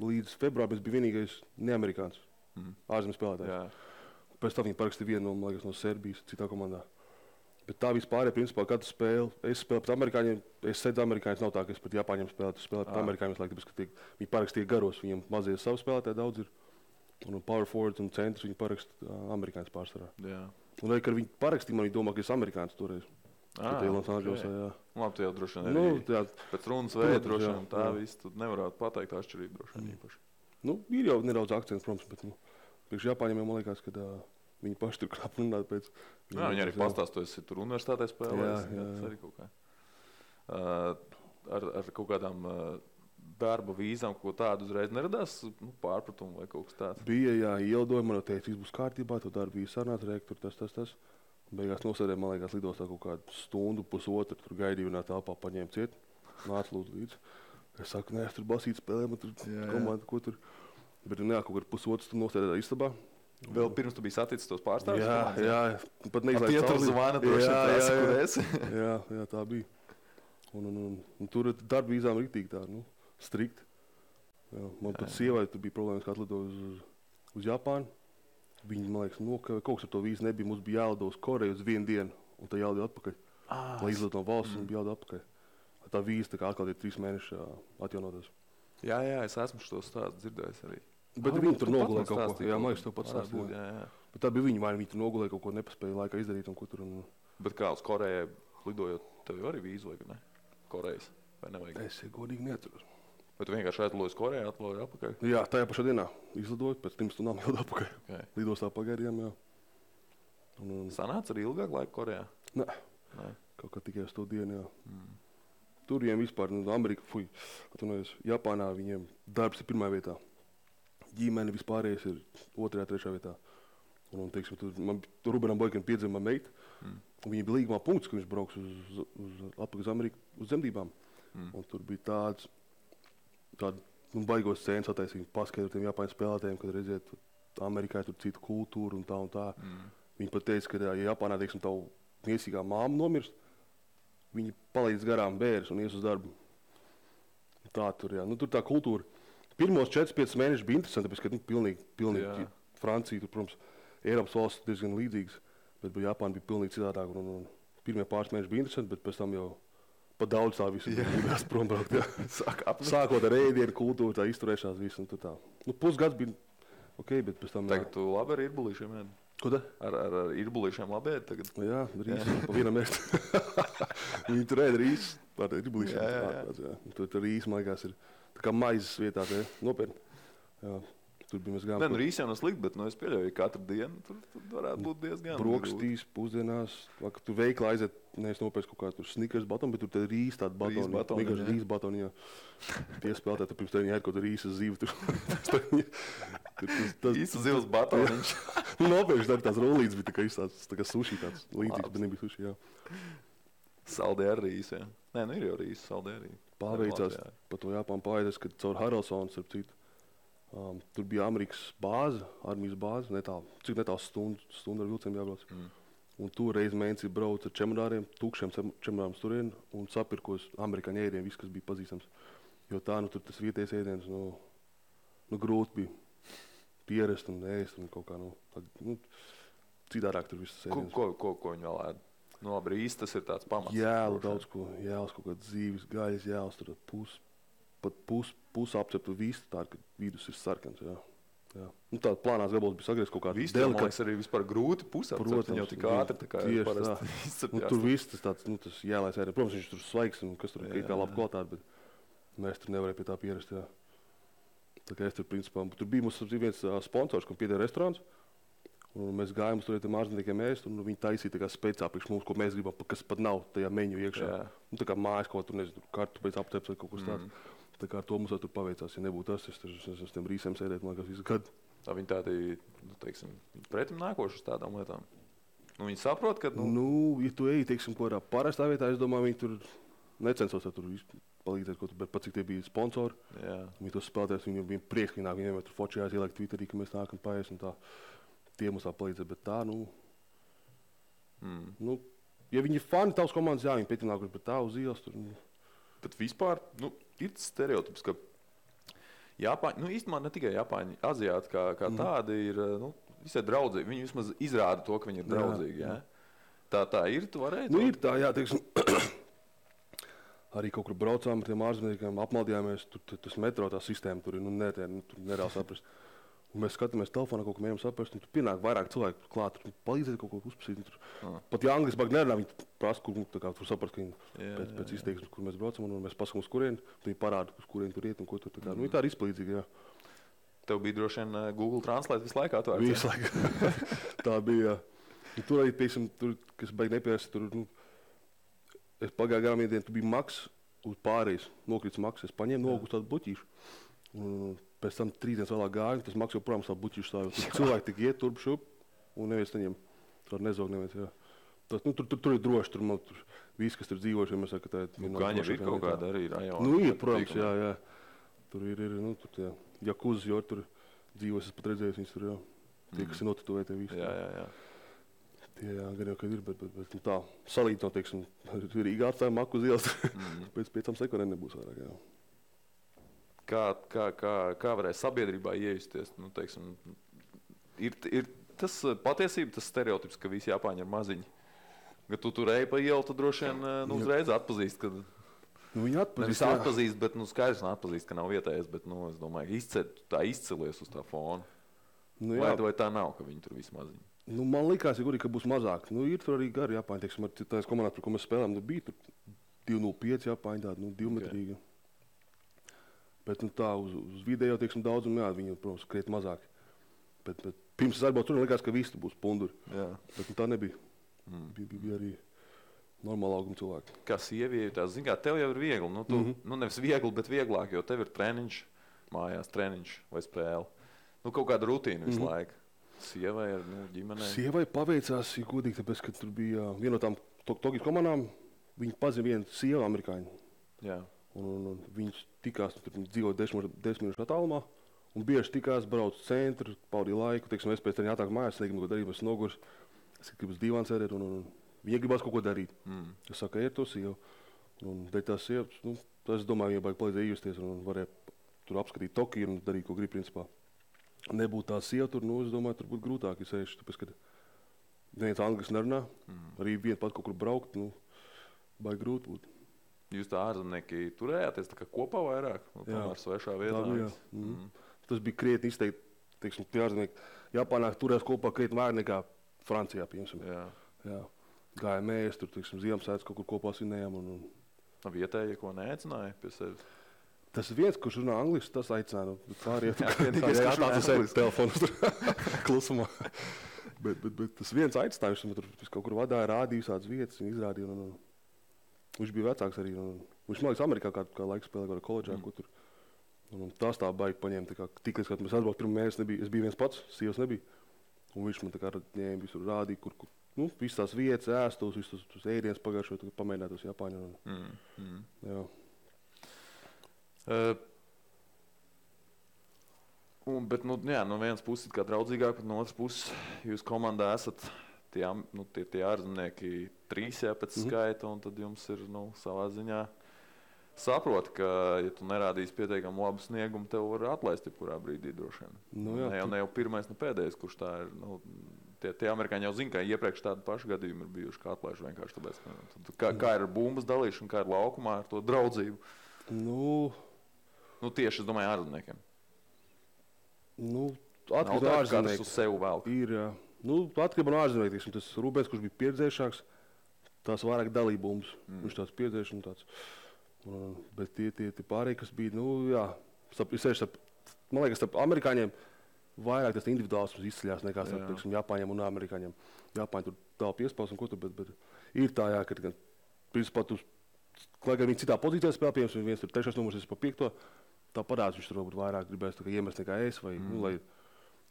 līdz februārim es biju vienīgais neamerikāns ārzemju spēlētājs. Jā. Pēc tam viņi parakstīja vienu no, man liekas, no Serbijas, citā komandā. Bet tā vispār, principā, katru spēli, es spēlēju pret amerikāņiem, es sēdzu amerikāņus, nav tā, ka es pret Japāņiem spēlētu, es spēlēju pret amerikāņiem, tāpēc, ka viņi parakstīja garos, viņiem mazie savu spēlētāji daudz ir. Un power forwards un centrs viņi parakstīja amerikāņus pārsvarā. Jā. Un arī, kad viņi parakstīja, man viņi domā, ka es amerikāns toreiz. Okay. Labi, tu jau droši vien arī pēc runas veida droši vien tā viss, tu nevarētu pateikt atšķirību droši vien īpaši. Ir jau nedaudz akcents, protams, bet priekš Japāņiem jau man liekas, ka viņi paši tur krāp runāt pēc. Viņi arī pastāst, tu esi tur universitātē spēlējis. Tas arī kaut kā. Ar kaut kādām darba vīzām, ko tādu uzreiz neradās pārpratumu vai kaut kas tāds? Bija, ielidoja, man teica, viss būs kārtībā, tu darba vīza sarunāts, rektur, tas. Beigās nosēdēja, man liekas, lidostā kaut kādu stundu, pusotru, tur gaidīju vienā telpā, paņēma ciet, nāca lūdzu līdzi. Es saku, nē, es tur basīt spēlēju, man tur komanda, ko tur. Bet kaut kur pusotru stundu nosēdēja istabā. Vēl pirms tu biji saticis tos pārstāvjus? Jā, pat neizlaiž cauri. Tie tur zvana, droši vien kur esi. Jā, tā bija. Un tur darba vīzām riktīgi tā, strikt. Man pat sievai tur bija problēmas, kā atlidoja uz Japānu. Viņi, man liekas, kaut kas ar to vīzu nebija. Mums bija jālido uz Koreju uz vienu dienu, un tā jālido atpakaļ. Lai izlido no valsts, un bija jālido atpakaļ. Tā vīza tā kā atkal ir 3 mēneši atjaunotas. Jā, es esmu šo stāstu dzirdējis arī. Bet viņi tur nogulēja kaut ko. Jā, man liekas, tev pats stāstīja. Jā. Bet tā bija viņi tur nogulēja kaut ko, nepaspēja laikā izdarīt un ko tur. Bet kā uz Korejai lidojot, tev jau arī vīzu vajag, ne? Korejas, vai nevajag? Es godīgi neatceros. Bet tu vienkārši atlidoji uz Koreju, atlidoji atpakaļ? Jā, tajā pašā dienā izlidoju, pēc 3 stundām jau atpakaļ. Okay. Lidostā pagaidījām, jā. Sanāca arī ilgāk laika Korejā? Nē. Kaut kā tikai uz to dienu, jā. Tur viņiem vispār, Japānā viņiem darbs ir pirmā vietā. Ģimene vispārējais ir 2., 3. vietā. Un, teiksim, tur Rubenam Boikinam piedzima meita, un viņa bija līgumā punkts, ka viņš brauks atpakaļ uz Ameriku uz dzemdībām. Un tur bija tādu baigos scēnas attaisīt, paskaidrot tiem Japāņu spēlētājiem, kad redziet, Amerikā tur citu kultūru un tā. Viņi pat teica, ka ja Japānā, teiksim, tavu miesīgā māma nomirst, viņi palīdz garām bērns un ies uz darbu. Tā tur, jā. Tur tā kultūra. Pirmos 4-5 mēnešus bija interesanti, tāpēc, ka pilnīgi Francija, tur, protams, Eiropas valsts diezgan līdzīgas, bet Japāna bija pilnīgi citādāk. Pirmie pāris mēneši bija interesanti, bet pēc tam jau pat daudz tā visu gribējās prom braukt. Sākot ar ēdienu, kultūru, tā izturēšanās visu un tā. Pusgads bija ok, bet pēc tam... Tagad tu labi ar irbulīšiem ēd? Ko tā? Ar irbulīšiem labi ēd tagad? Jā, rīsi, pa vienam ēst. Viņi tur ēd rīsi ar irbulīšiem. Tur rīsi, man liekas, ir tā kā maizes vietā, nopietni. Jā. Tur bija mēs gājām. Rīsi jau nav slikti, bet es pieļauju, ka katru dienu tur varētu būt diezgan. Brokastīs, pusdienās, tu veiklā aiziet, nevis nopērst kaut kādu Snickers batonu, bet tur tad rīsi tādu batonu. Vienkārši rīsi batonu, jā. Tie spēlētāji, tur pirms tev viņi ēd kaut kādu rīsas zivu. Īsa zivs batoniņš. Nopērši tās rolītes bija tā kā suši tāds līdzīgs, bet nebija suši, jā. Saldē ar rīsi, jā. Nē, ir jau rīsi, saldē arī. Pārveicās pa to Japānu pārēdēs, kad caur Haralsonu, starp citu. Tur bija Amerikas bāze, armijas bāze, cik netālu stundu ar vilcienu jābrauc. Un tur reiz mēnesī brauc ar čemodāriem, tukšiem čemodāriem turien un sapirkos amerikāņu ēdienu, viss, kas bija pazīstams. Jo tā, tur tas vietējais ēdiens, grūti bija pierast un ēst un kaut kā, citādāk tur viss sēdienas. Ko viņi vēl ēd? Nu, labi, rīs tas ir tāds pamats. Jēlu daudz ko, jēlas kaut kāds dzīves, gaļas jēlas, tur pus apceptu vistu, tā, ka vidus ir sarkans, jā. Nu, tāda plānās gabals bija sagriezts kaut kāds delikāts. Man liekas, arī vispār grūti pusapcept, viņi jau tik ātri, tā kā parasti izcepjās. Tur viss tas tāds, nu, tas jēlais ēdien. Protams, viņš tur svaigs un kas tur ir kā labi kvalitāte, bet mēs tur nevarēja pie tā pierast, jā. Tā kā es tur, principā, tur bija mums viens sponsors, kam pieder restorāns, un mēs gājām uz tur ārzemniekiem ēst, un viņi taisīja tā kā speciāli priekš mums, ko mēs gribam, kas pat nav tajā meņu iekšā. Nu, tā kā mājas kaut tur, nezinu, kartu pēc apceps vai kaut kas tāds. Tā kā ar to mums tur paveicās, ja nebūtu tas, es uz tiem rīsiem sēdēt, man liekas, visu gadu. Tā viņi tādi, nu, teiksim, pretim nākoši uz tādām lietām. Nu, viņi saprot, ka, Nu, ja tu eji, teiksim, kaut kādā parastā vietā, es domāju, viņi tur necensos tur palīdzēt, bet pat cik tie bija sponsori. Jā. Viņi to spēlēties, viņiem bija prieks, ka viņi vienmēr tur fočījās, ielikt Twitterī, ka mēs nākam paēst un tā. Tie mums tā palīdzēt, bet tā, nu, ja viņi ir fani tavas komandas, jā, viņi pēc nākuši, bet tā uz ielas tur. Bet vispār, nu, ir stereotips, ka Japāņi, nu, īstenībā ne tikai Japāņi, aziāti kā tādi ir, nu, visai draudzīgi. Viņi vismaz izrāda to, ka viņi ir draudzīgi, jā. Tā ir, tu varēji? Nu, ir tā, jā, teiksim, arī kaut kur braucām ar tiem ārzemniekiem, apmaldījāmies, tur tas metro tā sistēma, tur ir, tur nereāli saprast. Un mēs skatāmies telefonā, kaut ko mēģinām saprast, un tur pienāk vairāk cilvēku klāt, tur palīdzēt kaut ko uzpasīt. Pat ja angliski bāk nerunā, viņi prasa, kur tur saprast, ka viņi pēc izteiksmes, kur mēs braucam, un mēs pasakām uz kurieni, viņi parāda, uz kurieni tur iet un ko tur tā kā. Nu, tā ir izpalīdzīga, jā. Tev bija droši vien Google Translate visu laiku atvērts? Visu laiku. Tā bija, jā. Tur arī, piemēram, tur, kas baigi nepierasti, tur, nu, es pagāju garām vienu dienu, tu bija maks uz pārējais, nokrits maks, es paņēmu nogu uz tādu buķīšu. Un pēc tam 3 dienas vēlāk gāju, tas maks joprojām savu buķīšu stāvju. Cilvēki tik iet turp šup, un neviens neņem. Tur nezog neviens, jā. Tas, nu, tur ir droši, tur viss, kas tur dzīvojuši, mēs saka, ka tā ir... Gaņa ir kaut kāda arī rajona. Nu, ir, protams, jā. Tur ir, nu, tur tie jakuzas, jo tur dzīvos, es pat redzēju, viņas tur, jā. Tie, kas ir notatuvēti visi. Jā. Tie, jā, gan jau, kad ir, bet nu, tā, salīt no, teiksim, Rīgā atstāja maku uz ielas, pēc 5 sekundēm nebūs vairāk, jā. Kā varēja sabiedrībā iejusties? Nu, teiksim, ir tas patiesība, tas stereotips, ka visi Japāņi ir maziņi. Kad tu tur eji pa ielu, tad droši vien uzreiz atpazīst, kad... Nu, viņi atpazīst, jā. Atpazīst, bet skaidrs atpazīst, ka nav vietējais, bet, es domāju, tā izcelies uz tā fona. Nu, vai tā nav, ka viņi tur visi maziņi? Nu, man likās, ka būs mazāk. Nu, ir tur arī gari Japāņi, teiksim, ar tās komandās, par ko mēs spēlējām, bija tur 205 Japāņi, tādi, 2-metrīgi. Okay. Bet nu, tā uz video, teiksim, daudzumu, jā, viņi, protams, kriet mazāk. Bet pirms es atbraucu tur, likās, ka visi būs punduri. Jā. Bet nu, tā nebija. Bija arī normāla auguma cilvēki. Kā sieviete, zin kā, tev jau ir viegli. Nu, tu, nu nevis viegli, bet vieglāk, jo tev ir treniņš, mājās treniņš vai spēle. Nu, kaut kāda rutīna visu laiku. Sievai ar ģimenei. Sievai paveicās, ja godīgi, tāpēc, ka tur bija viena no tām Tokijas komandām, viņi pazina vienu sievu amerikāņu. Jā. Un viņš tikās, tur dzīvo 10 minūšu attālumā, un bieži tikās, brauc centru, paudīja laiku, teiksim, es pēc tam jātāk mājās, negribu ko darīt, es nogurs, es gribu uz divānu sēdēt, un viņa gribās kaut ko darīt. Es saku, ir to sievu, un dēļ tās sievas, nu, es domāju, viņa baigi palīdzēja iejusties, un varēja tur apskatīt Tokiju un darīt, ko grib, principā. Nebūtu tā sieva tur, nu, es domāju, tur būtu grūtāk, ja sēž, tāpēc, kad neviens anglis nerunā, arī vien pat kaut kur braukt, nu, baigi grūti būtu. Jūs tā ārzemnieki turējāties tā kā kopā vairāk, tomēr svešā vietā? Tas bija krietni izteikti, teiksim, tie ārzemnieki. Japānā turējās kopā krietni vairāk nekā Francijā, piemēram. Jā. Gājām ēst, tur, teiksim, Ziemassvētkus kaut kur kopā svinējām. Vietēji, ko neaicināja pie sevis? Tas viens, kurš runā angliski, tas aicināja. Pāriet, kā skatās uz telefonu klusumā. bet tas viens aicināja, viņš tur kaut kur vadāja, rādīja visādas vietas, viņi izrādīja. Viņš bija vecāks arī. Viņš, man liekas, Amerikā kā laiku spēlēja kādā koledžā, ko tur. Tas tā baigi paņēma. Tik līdz, kad mēs atbrauc pirmo mēnesi, es biju viens pats, sievas nebija. Un viņš man tā kā ņēma visur rādīja, kur nu, visas tās vietas, ēstos, visus tos ēdienas pagājušo, pamēģināt tos Japāņu. Jā. Bet, nu, jā, no vienas puses kā draudzīgāk, bet no otras puses jūs komandā esat tie ārzemnieki 3 pēc skaita, un tad jums ir, savā ziņā saprot, ka, ja tu nerādīsi pietiekami labu sniegumu, tev var atlaist jebkurā brīdī droši vien. Ne jau pirmais, ne pēdējais, kurš tā ir, Tie amerikāņi jau zina, ka iepriekš tādu pašu gadījumu ir bijuši, kā atlaiž vienkārši tāpēc. Kā ir bumbas dalīšana, kā ir laukumā ar to draudzību? Tieši, es domāju, ārzemniekiem. Atkarībā no ārzemniekiem. Katrs uz sevi velk. Ir, atkarībā no ārzemniekiem. Tas Rūbens, kurš bija pieredzējušāks, tās vairāk dalīja bumbas. Viņš tāds pieredzējuši un tāds. Bet tie pārējie, kas bija, man liekas, starp amerikāņiem vairāk tas individuālisms izceļās nekā starp Japāņiem un amerikāņiem. Japāņi tur dala piespaus un ko tur, bet ir tā, ka principā tu, lai gan viņi citā pozīcijā spēlē, piemēram, viens tur 3. numurs, es pa 5. Tā parādās, viņš tur varbūt vairāk gribēs iemest nekā es, vai, lai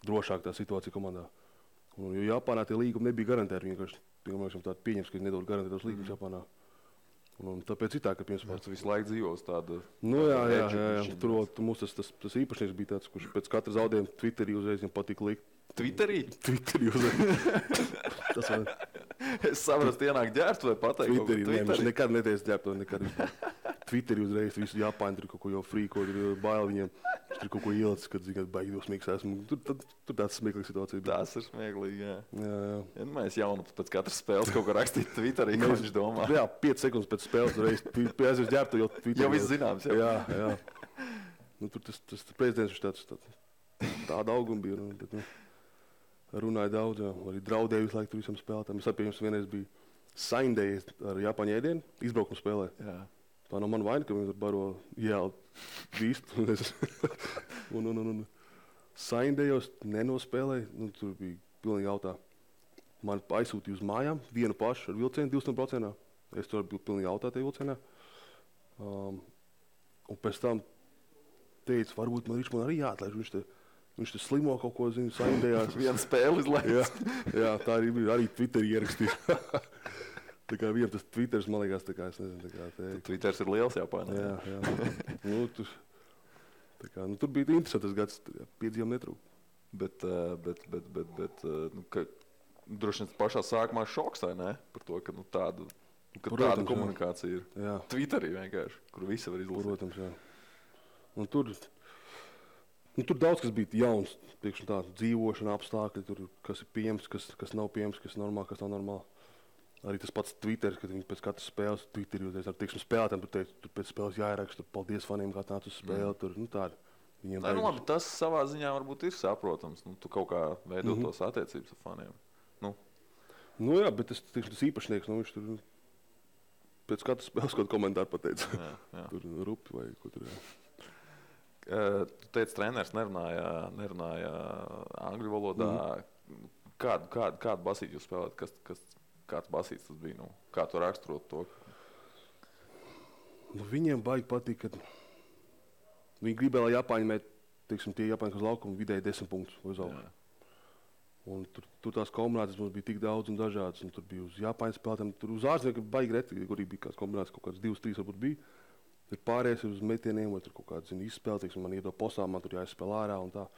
drošāk tā situācija komandā. Jo Japānā tie līgumi nebija garantēti, vienkārši tādi pieņems, ka viņi nedod garantētos līgumus Japānā. Un tāpēc ir tā, ka tu visu laiku dzīvos tāda... Jā. Tur mums tas īpašnieks bija tāds, kurš pēc katra zaudējuma Twitterī uzreiz viņam patika likt. Twitterī? Twitterī uzreiz. Es saprotu, ienāk ģērbt vai pateikt? Twitterī. Viņš nekad neteica ģērbt vai nekad vispār. Twitterī uzreiz visu Japāņu tur kaut ko jau frīko, tur bail viņiem. Viņš tur kaut ko ielicis, kad zina, baigi dosmīgs esmu. Tur tāds smieklīgs situācija bija. Tas ir smieklīgi, jā. Jā. Mēs jaunu pēc katras spēles kaut ko rakstīt Twitterī, ko viņš domā. Jā, 5 sekundes pēc spēles reiz. Pēc ģērbtu jau Twitterī. Jau viss zināms, jā. Jā. Tur tas prezidents viņš tāda auguma bija. Bet, runāja daudz, jā. Arī draudēja visu laiku tur visam spēlētājiem. Es pieņems vienreiz bija Saindēja ar Japāņu ēdienu, izbraukuma spēlē. Jā. Tā nav mana vaina, ka viņi tur baro jēlu vīstu. Un Saindējos nenospēlēja, tur bija pilnīgi jautā. Man aizsūtīja uz mājām vienu pašu ar vilcienu 200%. Es tur biju pilnīgi jautā tajā vilcienā. Un pēc tam teica, varbūt man arī jāatlaiž. Viņš te slimo kaut ko, zinu, Saindējās. Vienu spēli izlaist. Jā, tā arī bija. Arī Twitterī ierakstīja. Tā kā vienam tas Twitters, man liekas, tā kā es nezinu, tā kā... Twitters ir liels Japānā. Jā. Tur bija interesants gads, piedzīvām netrūk. Bet droši vien pašā sākumā šoks, vai ne? Par to, ka tāda komunikācija ir. Jā. Twitterī vienkārši, kur visi var izlasīt. Protams, jā. Un tur daudz kas bija jauns, tiekšņi tā, dzīvošana, apstākļi, tur, kas ir pieejams, kas nav pieejams, kas ir normāli, kas nav normāli. Arī tas pats Twitter, kad viņi pēc katras spēles Twitterī uzreiz ar spēlētājiem, tur pēc spēles jāieraksta, paldies faniem, kā nāc uz spēli, tur, tādi. Labi, tas savā ziņā varbūt ir saprotams, tu kaut kā veido tos attiecības ar faniem. Jā, bet tas īpašnieks, viņš tur pēc katras spēles kaut komentāru pateica. Jā. Tur rupi vai ko tur, jā. Tu teici, treneris nerunāja angļu valodā. Kādu basīti jūs spēlēt? Kāds basīts tas bija? Kā tu raksturot to? Viņiem baigi patīk, ka viņi gribēja, lai Japāņi mēt, tie Japāņi, kas laukuma vidēji 10 punktus uz augšu. Un tur tās kombinācijas mums bija tik daudz un dažādas. Un tur bija uz Japāņu spēlētājiem, tur uz ārzemniekiem baigi reti, kur bija kāds kombinācijas, kaut kāds 2-3 varbūt bija. Tur pārējais ir uz metieniem, vai tur kaut kāds izspēle, man iedo posām, man tur jāizspēl ārā un tā.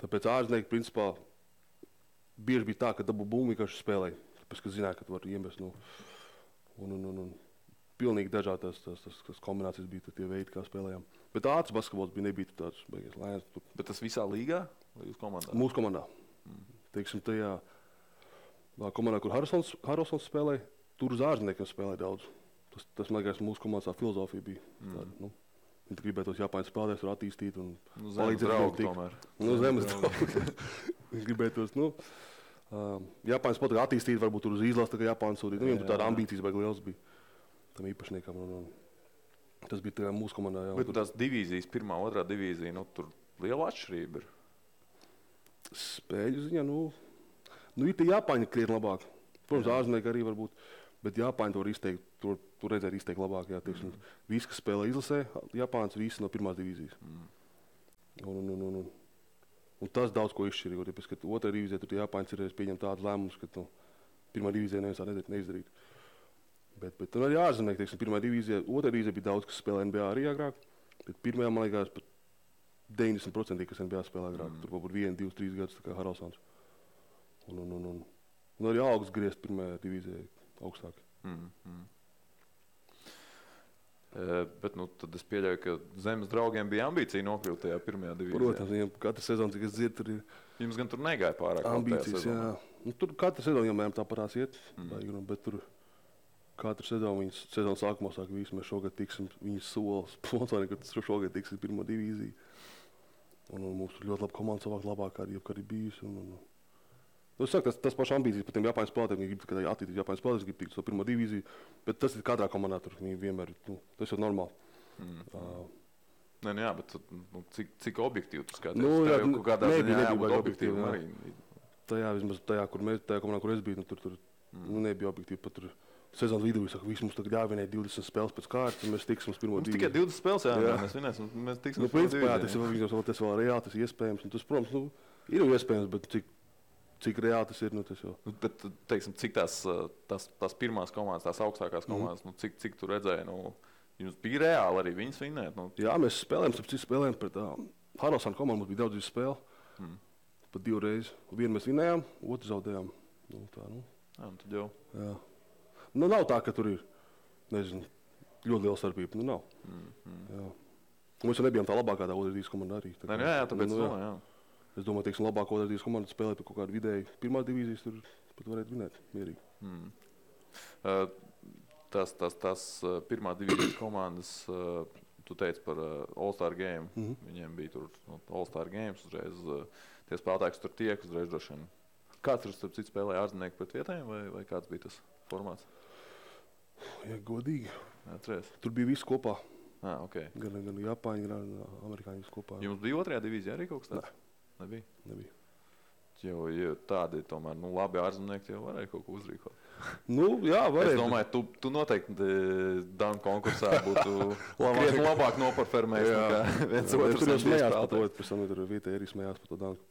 Tāpēc ārzemnieki, principā, bieži bija tā, ka dabū bumbu vienkārši spēlēja. Tāpēc, ka zināja, ka tu vari iemest. Un pilnīgi dažādas tās kombinācijas bija tie veidi, kā spēlējām. Bet ātrs basketbols nebija tāds beigas lēns. Bet tas visā līgā vai jūs komandā? Mūsu komandā. Teiksim, tajā komandā, kur Haralsons spēlēja, tur uz ārzemniekiem spēlēja daudz. Tas man liekas, mūsu komandas filozofija bija. Viņi gribēja tos Japāņu spēlētājus tur attīstīt un palīdzēt draugu tomēr. Zemes draugu. Viņi gribēja tos, Japāņu spēlētāju attīstīt, varbūt tur uz izlases, tā kā Japāņu sūtīt. Viņiem tur tāda ambīcijas baigi liels bija tam īpašniekam. Tas bija tā mūsu komandā. Jā, bet tās divīzijas, 1. 2. divīzija, tur liela atšķirība ir. Spēļu ziņā, ir tie Japāņi krietni labāk. Protams, ārzemnieki arī varbūt, bet Japāņi to var izteikt, tur redzēt izteikt labāk. Jā, visi, kas spēlē izlasē, Japāns visi no 1. divīzijas. Un tas daudz ko izšķirīja, tāpēc, ka 2. divīzijā tur Japāņi ir pieņemt tādus lēmumus, ka 1. divīzijā neviens tā neizdarīt. Bet tur arī ārzemnieki, 1. divīzijā, 2. divīzijā bija daudz, kas spēlē NBA arī agrāk, bet 1. man liekas pat 90%, kas NBA spēlē agrāk. Tur varbūt 1, 2, 3 gadus, tā kā Haralsons. Un arī augsts griezt 1. divīzijā augstāk. Bet tad es pieļauju, ka zemes draugiem bija ambīcija nokļūt tajā 1. divīzijā. Protams, viņiem katru sezonu, cik es dzirdu, tur ir jums gan tur negāja pārāk ambīcijas, jā. Nu, tur katru sezonu vienmēr tāpatās iet, bet tur katru sezonu viņas sezonas sākumā saka, visi mēs šogad tiksim, viņas solas sponsori, ka šogad tiksim pirmo divīziju. Un mums tur ļoti laba komanda savāk labāk arī bijusi. Es saku, tas pašs ambīcijas par tiem Japāņu spēlētājiem, viņi grib attīstīt Japāņu spēlētājus, grib tikt uz to pirmo divīziju, bet tas ir katrā komandā tur vienmēr, tas ir normāli. Nē, jā, bet cik objektīvi tu skaties? Jā, kaut kādā ziņā jābūt objektīvi. arī. Tajā komandā, kur es biju, tur nebija objektīvi. Pat tur sezonas vidū saka, visi mums tagad jāvinē 20 spēles pēc kārtas, un mēs tiksim uz pirmo divīziju. Tikai 20 spēles, jā. Mēs vinēsim, mēs tiksim uz pirmo divīziju. Tas vēl reāli, tas ir iespējams. Tas, protams, ir iespējams, bet cik reāli tas ir, tas jau. Bet, teiksim, cik tās pirmās komandas, tās augstākās komandas, cik tu redzēji, jums bija reāli arī viņas vinēt? Jā, mēs spēlējām pret Haralsānu komandu, mums bija daudz spēle. Pat 2 reizes. Vienu mēs vinējām, otru zaudējām. Tad jau. Jā. Nav tā, ka tur ir, nezinu, ļoti liela starpība. Nav. Jā. Mēs jau nebijām tā labākā tā otras divīzijas komanda arī. Jā, tāpēc jā. Es domāju, teiksim, labāko otras divīzijas komandu spēlēt par kaut kādu vidēju pirmā divīzijas, tur pat varētu vinēt mierīgi. Tās pirmā divīzijas komandas, tu teici par All-Star Game. Viņiem bija tur All-Star Games, uzreiz tie spēlētāji, kas tur tiek, uzreiz droši vien. Kāds tur starp citu spēlēja ārzemnieki pret vietējiem, vai kāds bija tas formāts? Ja godīgi. Atceries? Tur bija viss kopā. Okay. Gan Japāņi, gan amerikāņi viss kopā. Jums bija otrajā divīzijā arī kaut kas tāds? Nebija. Jo tādi tomēr, labi ārzemnieki jau varēja kaut ko uzrīkot. Jā, varēja. Es domāju, tu noteikti danku konkursā būtu krietni labāk noparfermējis nekā viens otrs. Tur jau smējās par to, pēc tam tur vietēji arī smējās par to danku.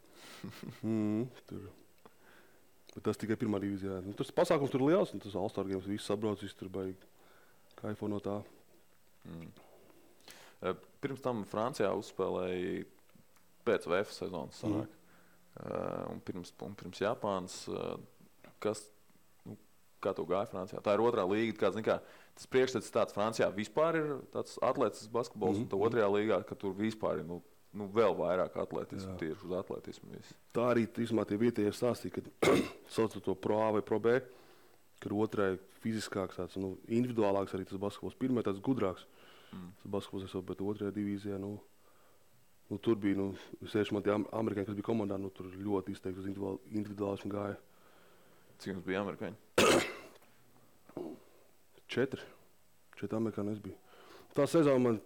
Bet tas tikai pirmā divīzijā. Tas pasākums tur liels, un tas All-Star Games viss sabrauc, viss tur baigi kaifo no tā. Pirms tam Francijā uzspēlēja pēc VF sezonas sanāk. Un pirms Japānas, kā tu gāji Francijā? Tā ir otrā līga, tas priekšstats tāds Francijā vispār ir tāds atletisks basketbols, un tā otrajā līgā, ka tur vispār ir vēl vairāk atletismu, tieši uz atletismu visu. Tā arī tie vietējie stāstīja, ka sauc to Pro A vai Pro B, ka otrai fiziskāks, tāds, individuālāks arī tas basketbols. Pirmā tāds gudrāks tas basketbols, bet otrajā divīzijā, tur bija, sevišķi man tie amerikāņi, kas bija komandā, tur ļoti izteikti uz individuālismu gāja. Cik jums bija amerikāņi? 4 amerikāņi es biju. Tā sezona man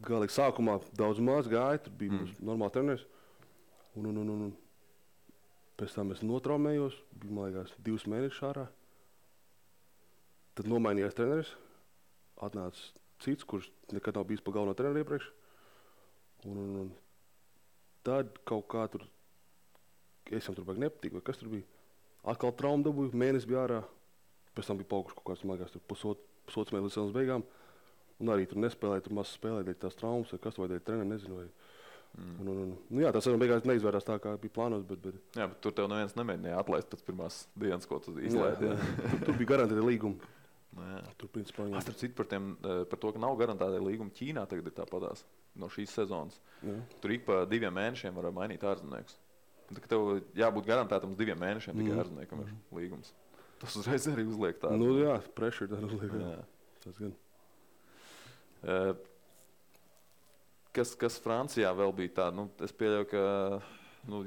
galīgi sākumā daudz maz gāja, tur bija normāli treneris. Un pēc tam es notraumējos, bija, man liekas, 2 mēnešus ārā. Tad nomainījās treneris, atnāca cits, kurš nekad nav bijis pa galveno treneru iepriekš. Un tad kaut kā tur, es jau tur baigi nepatīk, vai kas tur bija. Atkal traumu dabūju, mēnesis bija ārā, pēc tam bija paukuši kaut kāds, man liekas, tur pusotrs mēnesis līdz sezonas beigām. Un arī tur nespēlēja, tur maz spēlēja dēļ tās traumas, vai kas vai dēļ treneri, nezinu. Jā, tā sezona beigās neizvērās tā, kā bija plānots, bet... Jā, bet tur tev neviens nemēģināja atlaist pēc pirmās dienas, ko tu izlaidi. Tur bija garantēta līguma. Tur, principā, starp citu par to, ka nav garantēta līguma Ķīnā, tagad ir tāpatās no šīs sezonas. Tur ik pa 2 mēnešiem var mainīt ārzemniekus. Tev jābūt garantētam uz 2 mēnešiem tikai ārzemniekam ir līgums. Tas uzreiz arī uzliek tādu. Jā, pressure tā uzliek. Tas gan. Kas Francijā vēl bija tā, es pieļauju, ka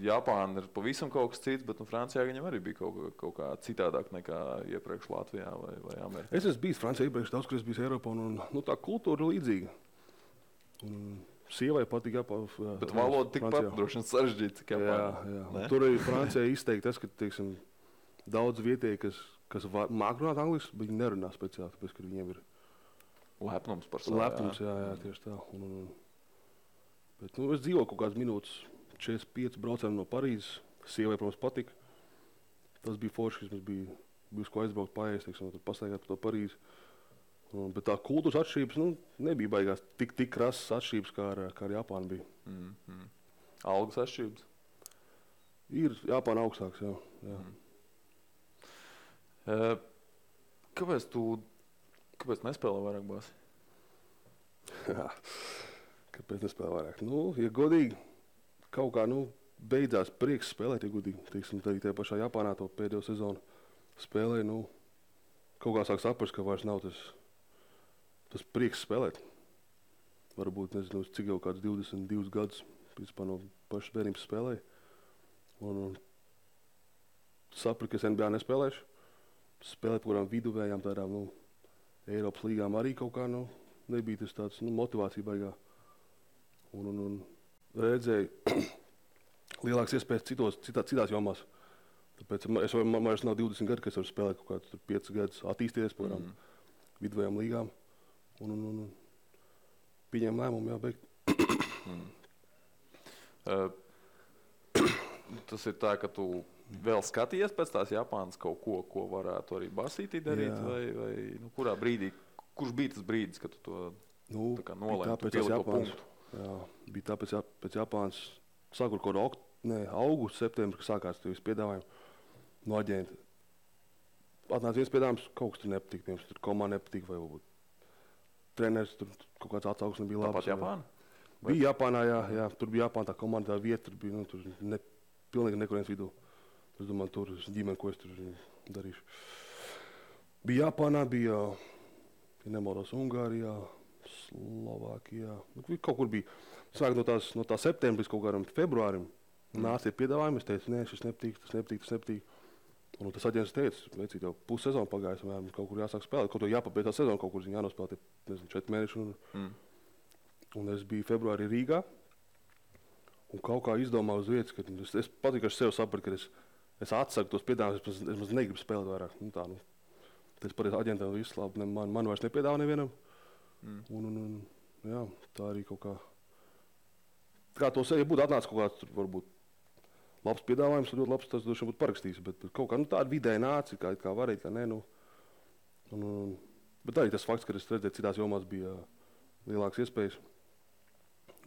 Japāna ir pavisam kaut kas cits, bet Francijā viņam arī bija kaut kā citādāk nekā iepriekš Latvijā vai Amerikā. Es esmu bijis Francijā iepriekš daudz, kur es biju Eiropā, un tā kultūra ir līdzīga. Sievai patīk Japāna. Bet valoda tikpat droši vien sarežģīta, cik Japāna. Jā. Tur arī Francijā izteikti tas, ka, teiksim, daudz vietēji, kas māk runāt angliski, bet viņi nerunā speciāli, tāpēc, ka viņiem ir lepnums par savu. Lepnums, jā, tieši tā. Bet es dzīvoju kaut kādas minūtes, 45 braucām no Parīzes. Sievai, protams, patika. Tas bija forši, kas mums bija uz ko aizbraukt paēst, teiksim, tur pastaigāt par to Parīzi. Bet tā kultūras atšķirības, nebija baigās tik krasas atšķirības, kā ar Japānu bija. Algas atšķirības? Ir Japāna augstāks, jā. Kāpēc nespēlē vairāk bāzi? Kāpēc nespēlē vairāk? Ja godīgi, kaut kā, beidzās prieks spēlēt, ja gudīgi. Teiksim, arī tajā pašā Japānā to pēdējo sezonu spēlēja. Nu, kaut kā sāk saprast, ka vairs nav tas prieks spēlēt. Varbūt, nezinu, cik jau kāds 22 gadus principā no pašas bērnības spēlēja. Un sapratu, ka es NBA nespēlēšu. Spēlēt par kādām viduvējām tādām, nu, Eiropas līgām arī kaut kā, nu, nebija tas tāds, nu, motivācija baigā. Un redzēju lielākas iespējas citās jomās. Tāpēc man vairs nav 20 gadi, ka es varu spēlēt kaut kādus 5 gadus, attīstīties par kādām viduvējām līgām. Un pieņēmu lēmumu, jā, beigt. Tas ir tā, ka tu vēl skaties pēc tās Japānas kaut ko varētu arī basītī darīt, vai nu, kurā brīdī, kurš bija tas brīdis, kad tu to tā kā nolēmi, tu pieliki to punktu? Jā, bija tāpēc pēc Japānas, sākot kaut augustu, septembri, kad sākās tie visi piedāvājumi no aģenta. Atnāca viens piedāvājums, kaut kas tur nepatīk, piemēram, tur komanda nepatīk, vai varbūt treneris, tur kaut kāds atsauksme bija labs. Tāpat Japāna? Bija Japānā, jā, tur bija Japāna, tā komanda, tā vieta, tur bija, nu, tur pilnīgi nekurienes vidū. Es domāju, tur ģimene, ko es tur darīšu. Bija Japānā, bija, ja nemaldos, Ungārijā, Slovākijā, kaut kur bija. Sāk no tā septembris kaut kādam februārim nāca piedāvājumi, es teicu, nē, šis nepatīk, tas nepatīk. Un tas aģents teica, veicīt jau pussezonu pagājis, un kaut kur jāsāk spēlēt, kaut ko jāpabeidz tā sezona, kaut kur jānospēlēt, nezinu, 4 mēneši. Un es biju februārī Rīgā, un kaut kā izdomāju uz vietas, ka es patīk, ka es sev sapratu, ka es atsaku tos piedāvājumus, es negribu spēlēt vairāk. Es pateicu aģentam, viss labi, man vairs nepiedāvā nevienam. Un jā, tā arī kaut kā. Kā to sevi būtu atnācis kaut kāds, varbūt labs piedāvājums, ļoti labs, tas droši būtu parakstījis, bet kaut kā tāda vidēji nāca, kā varēja, kā nē. Bet arī tas fakts, ka es redzēju, citās jomās bija lielākas iespējas.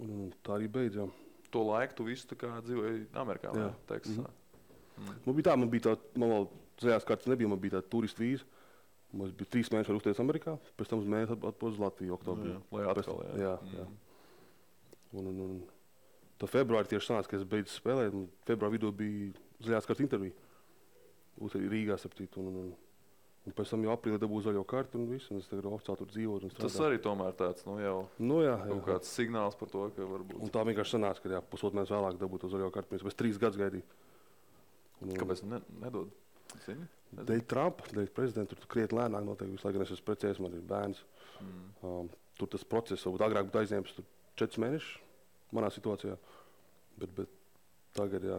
Un tā arī beidzām. To laiku tu visu tā kā dzīvoji Amerikā, vai Teksasā? Man bija tā, man vēl zaļās kartas nebija, man bija tā turistu vīza. Mums bija 3 mēneši var uzties Amerikā, pēc tam uz mēnesi atpūst uz Latviju oktobrī. Lai atkal, jā. Un tā februārī tieši sanāca, ka es beidzu spēlēt, un februāra vidū bija zaļās kartas intervija. Rīgā, sapcīt, un pēc tam jau aprīlī dabūju zaļo kartu un visu, un es tagad oficiāli tur dzīvoju un strādāju. Tas arī tomēr tāds, jau kaut kāds signāls par to, ka varbūt. Un tā vienkārši sanāca, ka jā, pusotru mēnesi vēlāk dabūju to zaļo kartu, pēc 3 gadus gaidīju. Kāpēc nedod? Zini? Dēļ Trumpa, dēļ prezidenta, tur krietni lēnāk notiek visu laiku, gan es esmu precējies, man ir bērns. Tur tas process, varbūt agrāk būtu aizņēmis 4 mēnešus manā situācijā, bet tagad, jā,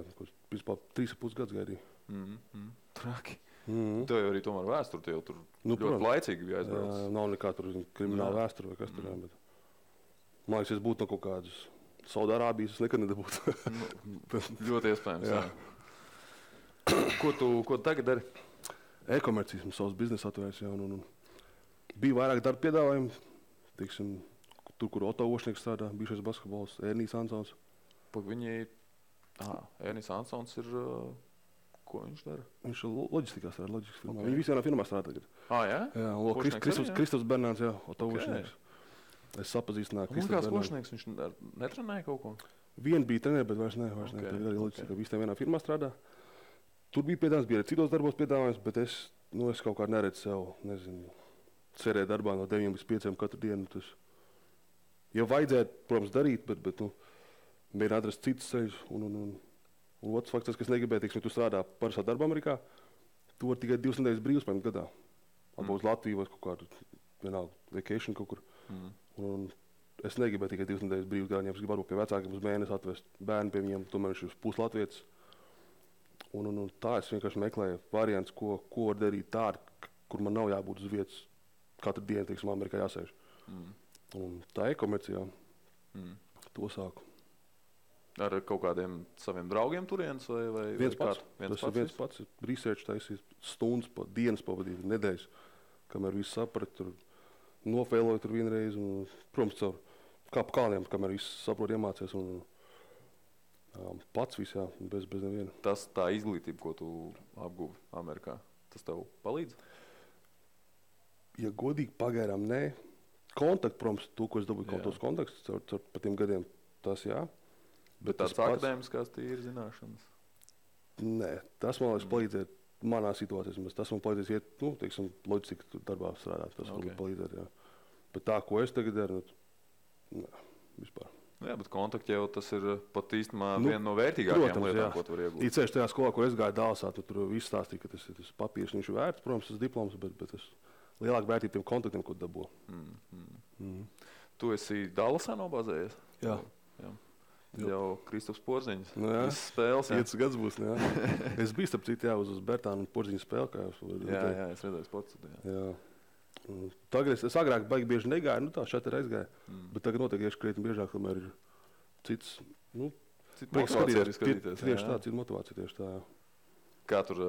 vispār 3,5 gadus gaidīju. Traki. Tev jau arī tomēr vēsture, tev tur ļoti laicīgi bija aizbraucis. Nav nekā tur krimināla vēsture vai kas tur, jā, bet man liekas, es būtu no kaut kādas Saudārābijas, es nekad nedabūtu. Ļoti iespējams, jā. Ko tu tagad dari? E-komercijas, savs biznesa atvērts, jā, un bija vairāk darba piedāvājumi, teiksim, tur, kur Oto Ošnieks strādā, bijušais basketbols, Ernijs Ansons. Ernijs Ansons ir, ko viņš dara? Viņš ir loģistikā strādā, loģistikas firmā. Viņi visi vienā firmā strādā tagad. Jā? Jā, Kristofs Bernāns, jā, Oto Ošnieks. Es sapazīstināju Kristofs Bernāns. Ošnieks, viņš netrenēja kaut ko? Vien bija trenēja, bet vairs ne. Tagad arī loģistikā, visi vienā firmā strādā. Tur bija piedāvājums, bija arī citos darbos piedāvājums, bet es kaut kā neredzu sev, nezinu, cerēt darbā no 9 līdz 5 katru dienu. Tas jau vajadzētu, protams, darīt, bet mēģināt atrast citus ceļus. Un otrs fakts, kas negribēja, teiksim, tu strādā parastā darba Amerikā, tu vari tikai 2 nedēļas brīvs paņemt gadā. Atbūt uz Latviju vai kaut kādu, vienalga, vacation kaut kur. Un es negribēju tikai 2 nedēļas brīvs gadā, ja es gribu varbūt pie vecākiem uz mēnesi atvest bērnu pie viņiem, tomēr viņš ir puslatvietis. Un tā es vienkārši meklēju variants, ko var darīt tādu, kur man nav jābūt uz vietas katru dienu, teiksim, Amerikā jāsēž. Un tā e-komercijā to sāku. Ar kaut kādiem saviem draugiem turienes vai viens pats? Tas ir viens pats. Research taisīs stundas, dienas pavadīt, nedēļas, kamēr visu saprat, tur nofēloju tur vienreiz. Un, protams, caur kā pa kalniem, kamēr visu saprot, iemācies. Pats viss, jā, bez neviena. Tā izglītība, ko tu apguvi Amerikā, tas tev palīdz? Ja godīgi pagaidām, nē. Kontakti, protams, to, ko es dabūju, tos kontaktus caur pa tiem gadiem, tas jā. Bet tāds akadēmiskās tīri zināšanas? Nē, tas man liekas palīdzēt manā situācijā. Tas man palīdzēs iet, teiksim, loģistika darbā strādāt. Tas man palīdzēt, jā. Bet tā, ko es tagad daru, vispār. Jā, bet kontakti jau tas ir pat īstenībā viena no vērtīgākajām lietām, ko tu vari iegūt. Īceļš tajā skolā, kur es gāju Dālsā, tur viss stāstīja, ka tas papīrs viņš ir vērts, protams, tas diploms, bet tas lielāk vērtība tiem kontaktiem, ko dabū. Tu esi Dālsā nobāzējies? Jā. Jau Kristaps Porziņš. Visas spēles, jā. 5 gads būs, jā. Es biju starp citu, jā, uz Bertānu un Porziņu spēli, kā jūs Jā, es redzēju sports. Jā. Tagad es agrāk baigi bieži negāju, tā šeit ir aizgāju, bet tagad noteikti iešu krietni biežāk, kamēr ir cits, Cita motivācija arī skatīties. Tieši tā, cita motivācija, tieši tā, jā. Kā tur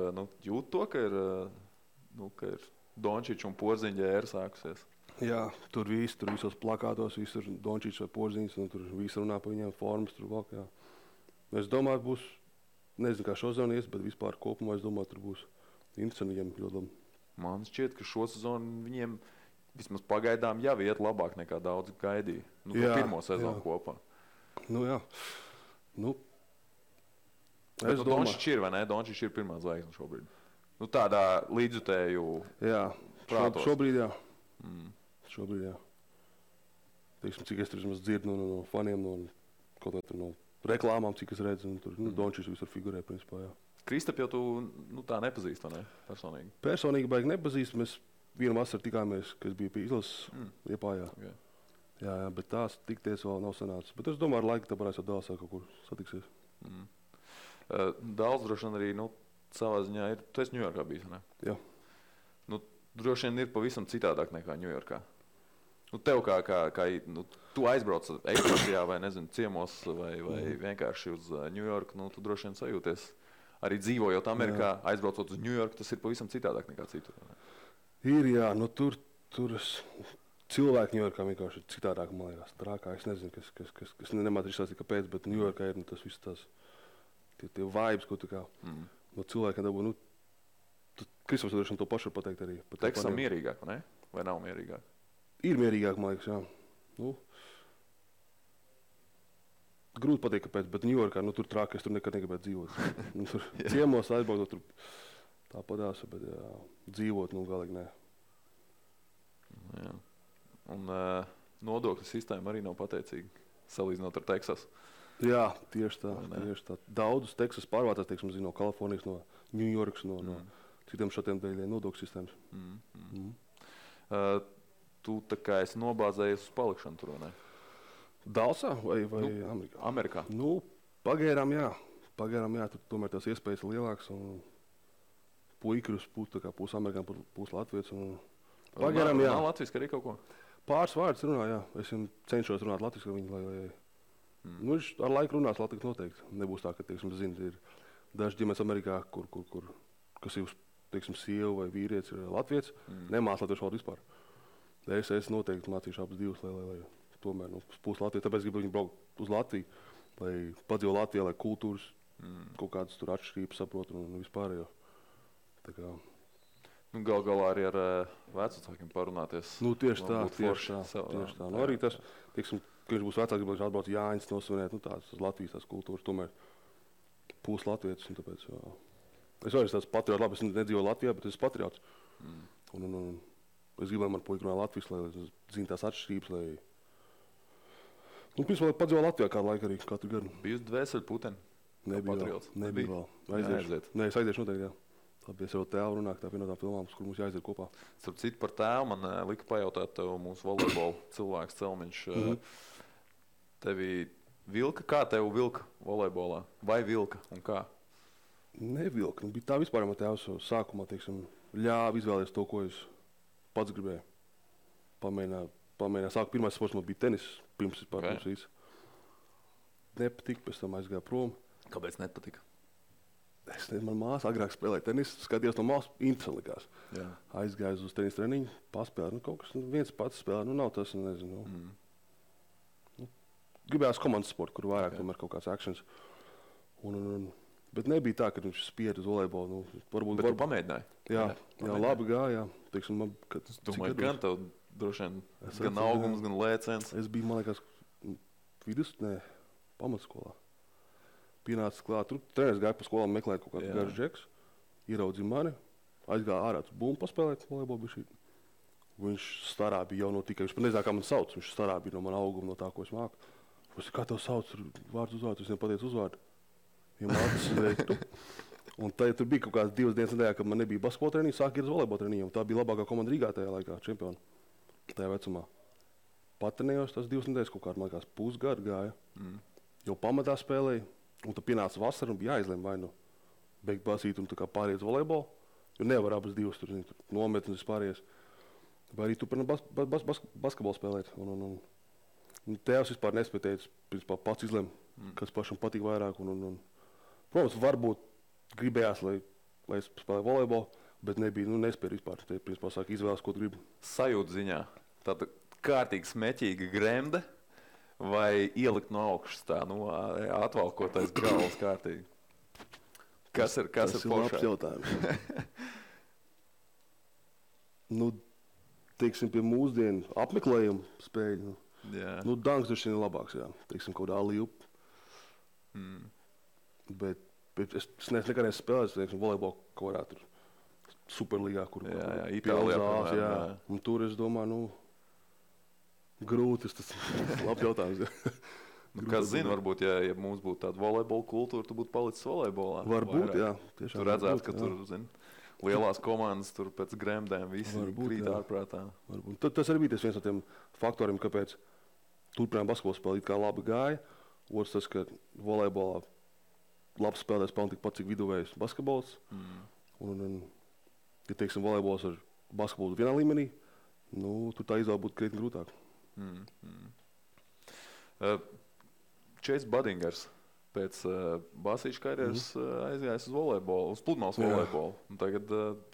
jūt to, ka ir Dončičs un Porziņa ēra sākusies? Jā, tur visos plakātos, visur Dončičs vai Porziņš, un tur visi runā par viņiem formas, tur valk, jā. Es domāju, būs, nezinu, kā šo sezonu ies, bet vispār kopumā es domāju, tur būs interesanti viņiem ļoti labi. Man šķiet, ka šo sezonu viņiem vismaz pagaidām jau iet labāk nekā daudz gaidīja. Pirmo sezonu kopā. Jā. Es domāju, Dončičs ir, vai ne? Dončičs ir pirmā zvaigzne šobrīd. Tādā līdzjutēju prātos. Šobrīd, jā. Šobrīd, jā. Teiksim, cik es tur dzirdu no faniem, kaut vai tur no reklāmām, cik es redzu, tur Dončičs visur figurē, principā, jā. Kristap jau tu tā nepazīst, vai ne? Personīgi? Personīgi baigi nepazīst. Mēs vienu vasaru tikāmies, kad es biju pie izlases Liepājā. Okay. Jā, bet tās tikties vēl nav sanācis. Bet es domāju, ar laiku tā varēs jau Dālsā kaut kur satiksies. Dāls droši vien arī, savā ziņā ir, tu esi Ņujorkā bijis, ne? Jā. Droši vien ir pavisam citādāk nekā Ņujorkā. Tev kā tu aizbrauc ekskursijā vai, nezinu, ciemos vai vienkārši uz Ņujorku, tu droši vien sajūties. Arī dzīvojot Amerikā, aizbraucot uz Ņujorku, tas ir pavisam citādāk nekā citur. Ir, jā, tur cilvēki Ņujorkā vienkārši ir citādāk, man liekas, trākā. Es nezinu, kas nemāc izstāstīt, kāpēc, bet Ņujorkā ir tas viss tās, tie vibes, ko tu kā no cilvēkiem dabū. Kristaps droši vien to pašu var pateikt arī. Teksasā mierīgāk, vai ne? Vai nav mierīgāk? Ir mierīgāk, man liekas, jā. Grūti pateikt, kāpēc, bet Ņujorkā, tur trāk, es tur nekad negribētu dzīvot. Tur ciemos aizbraukt, tur tāpadās, bet jā, dzīvot, galīgi nē. Jā. Un nodokļu sistēma arī nav pateicīga, salīdzinot ar Teksasu. Jā, tieši tā. Daudzus Teksas pārvācās, teiksim, no Kalifornijas, no Ņujorkas, no citiem šatiem dēļ nodokļu sistēmas. Tu tā kā esi nobāzējies uz palikšanu tur, vai ne? Dālsā vai Amerikā? Amerikā. Pagaidām, jā. Tur tomēr tās iespējas ir lielākas. Puika ir uz pusi amerikāņu, pusi latviešu. Pagaidām, jā. Nav latviski arī kaut ko? Pāris vārdus runā, jā. Es cenšos runāt latviski ar viņu, viņš ar laiku runās latviski noteikti. Nebūs tā, ka, teiksim, ir daži ģimenes Amerikā, kas ir, teiksim, sieva vai vīrietis ir latvietis, nemāc latviešu valodu vispār. Es noteikti mācīšu abas divas, lai tomēr pusi Latviju, tāpēc gribu viņu braukt uz Latviju, lai padzīvo Latvijā, lai kultūras kaut kādas tur atšķirības saprotu un vispārējo. Tā kā... Galā arī ar vecākiem parunāties. Tieši tā. Arī tas, teiksim, ka viņš būs vecāks, gribētu atbraukt Jāņas nosvinēt, tās Latvijas tās kultūras, tomēr pusi latvietis, un tāpēc, jā. Es arī tāds patriots, labi, es nedzīvoju Latvijā, bet es esmu patriots. Un es gribu, lai man puika runā Latvijas, lai zina tās atšķirības, lai... Pirms vēl padzīvo Latvijā kādu laiku arī, katru gadu. Biji uz dvēseli puteni? Nebija vēl. Es aiziešu noteikti, jā. Labi, es jau tēvu runāju, tā vienotām filmām, kur mums jāaiziet kopā. Starp citu par tēvu man lika pajautāt tev mūsu volejbola cilvēks Celmiņš. Tevi vilka, kā tev vilka volejbolā? Vai vilka un kā? Nevilka. Bija tā vispār, man tēvs sākumā, teiksim, ļāva izvēlēties to, ko es pats gribēju. Pamēģināju. Sāku pirmais sports man bija tenis, pirms visu. Nepatika, pēc tam aizgāju prom. Kāpēc nepatika? Es nezinu, man māsa agrāk spēlēja tenisu, skatījos no malas, interesanti likās. Jā. Aizgāju uz tenis treniņu, paspēlēju, kaut kas viens pats spēlē, nav tas, nezinu. Gribējās komandas sportu, kur vairāk tomēr kaut kāds actions. Bet nebija tā, ka viņš spied uz volejbolu. Bet tu pamēģināji? Jā, labi gāja. Teiksim, es domāju, gan tev droši vien gan augums, gan lēciens. Es biju, man liekas, pamatsskolā. pienācis klāt. Tur treneris gāja pa skolām meklēt kaut kādu Jā. garšu džeks. Ieraudzīja mani, aizgāja ārā uz bumbu paspēlēt volejbolu bišķīt. Viņš starā bija jau no tikai, viņš pat nezināja, kā man sauc. Viņš starā bija no mana auguma, no tā, ko es māku. Es kā tev sauc, tur vārds uzvārds, es viņam pateicu uzvārdu. Viņam acis veiktu. Un tur bija kaut kādas 2 dienas nedēļā, kad man nebija basketbola treniņa, sāk iet uz volejbola treniņu. Tā bija labākā komanda Rīgā tajā laikā, čempioni. Tajā vecumā. Patrenējos tās 2 nedēļas, kaut kādā, man liekas, pusgadu gāja. Jau pamatā spēlēja, un tad pienāca vasara un bija jāizlem vai nu beigt basīt un tā kā pāriet uz volejbolu. Jo nevar abas divas tur nometnes vispārējais. Vai arī turpināt basketbolu spēlēt. Un tēvs vispār nespēja teikt, principā pats izlem, kas pašam patīk vairāk. Protams, varbūt gribējās, lai es spēlēju volejbolu, bet nebija, nespēja vispār. Te, principā, sāk izvēles, ko tu gribi. Sajūta ziņā. Tāda kārtīgi smeķīga gremde vai ielikt no augšas tā, atvalkotais galvas kārtīgi? Kas ir labs jautājums. Teiksim, pie mūsdienu apmeklējumu spēļu. Danks droši vien ir labāks, jā. Teiksim, kaut kādā līup. Bet es nekad neesmu spēlējis, teiksim, volejbolu kaut kādā tur superligā, kur Itālijā, jā. Un tur es domāju, grūti, tas labs jautājums. Kas zina, varbūt, ja mums būtu tāda volejbola kultūra, tu būtu palicis volejbolā. Varbūt, jā. Tiešām, tu redzētu, ka tur, lielās komandas tur pēc gremdēm visi krīt ārprātā. Tas arī bija viens no tiem faktoriem, kāpēc turpinājām basketbolu spēli it kā labi gāja. Otrs tas, ka volejbolā labs spēlētājs pelna tikpat, cik viduvējs basketbols. Un, ja teiksim, volejbols ar basketbolu vienā līmenī, tur tā izvēle būtu krietni grūtāk. Chase Buddingers pēc basīšu karjeras aizgājis uz volejbolu, uz pludmales volejbolu. Un tagad,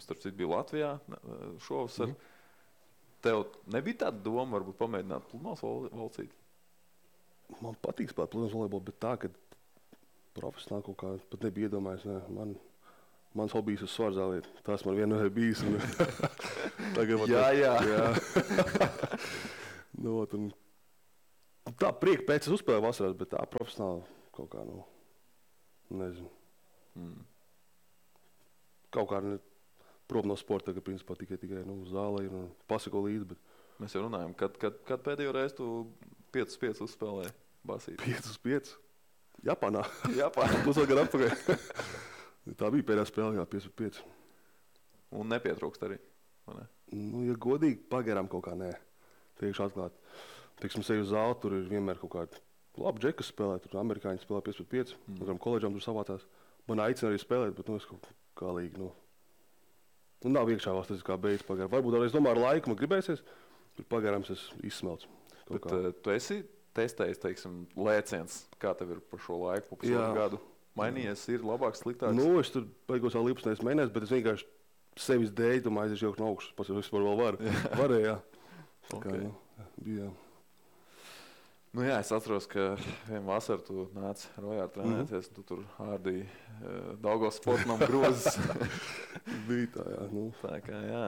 starp citu, bija Latvijā šovasar. Tev nebija tāda doma, varbūt pamēģināt pludmales volcīt? Man patīk spēlēt pludmales volejbolu, bet tā, ka profesionāli kaut kā pat nebija iedomājies. Mans hobijs ir svarzāliet. Tas man vienmēr ir bijis. Jā. Tā prieka pēc es uzspēlēju vasarās, bet tā profesionāli kaut kā, nezinu. Kaut kā prom no sporta, ka principā tikai zālē ir un pasako līdzi. Bet... Mēs jau runājam, kad pēdējo reizi tu 5-5 uzspēlēji basīt? 5-5? Japānā. Pusotru gadu atpakaļ. Tā bija pēdējā spēle, jā, 5-5. Un nepietrūkst arī, vai ne? Ja godīgi, pagarām kaut kā nē. Teikšu atklāt. Teiksim, seju uz zāli, tur ir vienmēr kaut kādi labi džeki, kas spēlē. Tur amerikāņi spēlē 5-5. Koledžām tur savācās. Man aicina arī spēlēt, bet es kaut kā līgi, nav iekšā valsts, tas ir kā beigas pagarām. Varbūt es domāju, ar laiku man gribēsies, bet pagarām es izsmelts. Bet tu esi testējis, teiksim, lēciens, kā tev ir par šo laiku, pa pusotru gadu? Mainījies, ir labāks, sliktāks? Es tur beigos vēl līpsnēs mēnēs, bet es vienkārši sevis dēļ, domāju, es jauku no augšas, pats vispār vēl varu. Varēja, bija. Es atceros, ka vienu vasaru tu nāci Rojā trenēties, tu tur ārdīji Daugavas sportam grozes. Bija tā, jā. Tā kā, jā.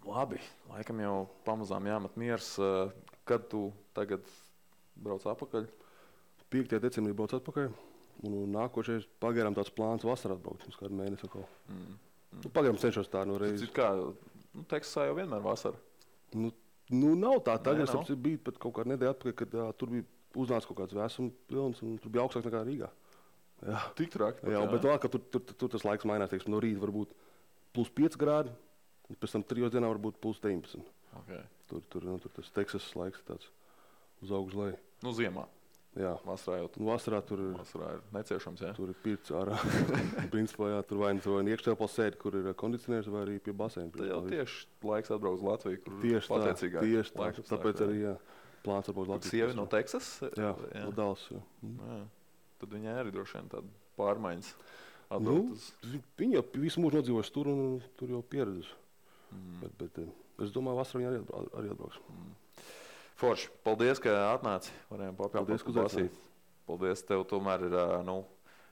Labi, laikam jau pamazām jāmet miers. Kad tu tagad brauc atpakaļ? 5. decembrī brauc atpakaļ. Un nākošais pagaidām tāds plāns vasarā atbraukt, uz kādu mēnesi atkal. Pagaidām cenšos tā no reizes. Kā, Teksasā jau vienmēr vasara? Nav tā. Tagad es biju pat kaut kādu nedēļu atpakaļ, kad tur bija uznāca kaut kāds vēsums pilns un tur bija augstāk nekā Rīgā. Jā. Tik traki? Jā, bet vēl, ka tur tas laiks mainās, teiksim, no rīta varbūt +5 grādi, un pēc tam 3 dienā varbūt +19. Okay. Tur tas Teksasas laiks tāds uz augšu leju. Ziemā? Jā. Vasarā tur ir neciešams, jā? Tur ir pirts ārā. Principā, jā, tur vai nu iekštelpā sēdi, kur ir kondicionieris, vai arī pie baseina. Tad jau tieši laiks atbrauc uz Latviju, kur pateicīgāk. Tieši tā, tāpēc arī, jā, plāns atbrauc uz Latviju. Sievi no Teksas? Jā, no Dallas, jā. Tad viņai arī droši vien tāda pārmaiņas atbrauc. Viņa jau visu mūžu nodzīvojusi tur un tur jau pieredzes. Bet es domāju, vasarā viņa arī atbrauks. Forši, paldies, ka atnāci. Varējām papildināt basīt. Paldies, tev tomēr ir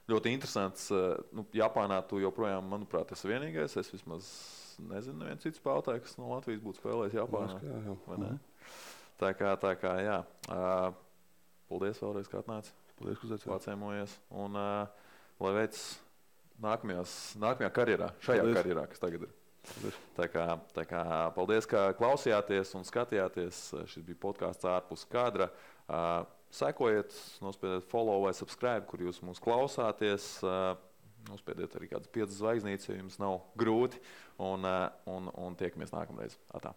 ļoti interesants. Japānā tu joprojām, manuprāt, esi vienīgais. Es vismaz nezinu, neviens cits spēlētājs, kas no Latvijas būtu spēlējis Japānā. Jā. Tā kā, jā. Paldies vēlreiz, ka atnāci. Paldies, ka uzaicinājāt. Pacēmojies. Un lai veids nākamajā karjerā, šajā Paldies. karjerā, kas tagad ir. Paldies. Tā kā paldies, ka klausījāties un skatījāties. Šis bija podkāsts ārpus kadra. Sekojiet, nospiediet follow vai subscribe, kur jūs mūs klausāties. Nospiediet arī kādas 5 zvaigznītes, ja jums nav grūti. Un tiekamies nākamreiz. Atā.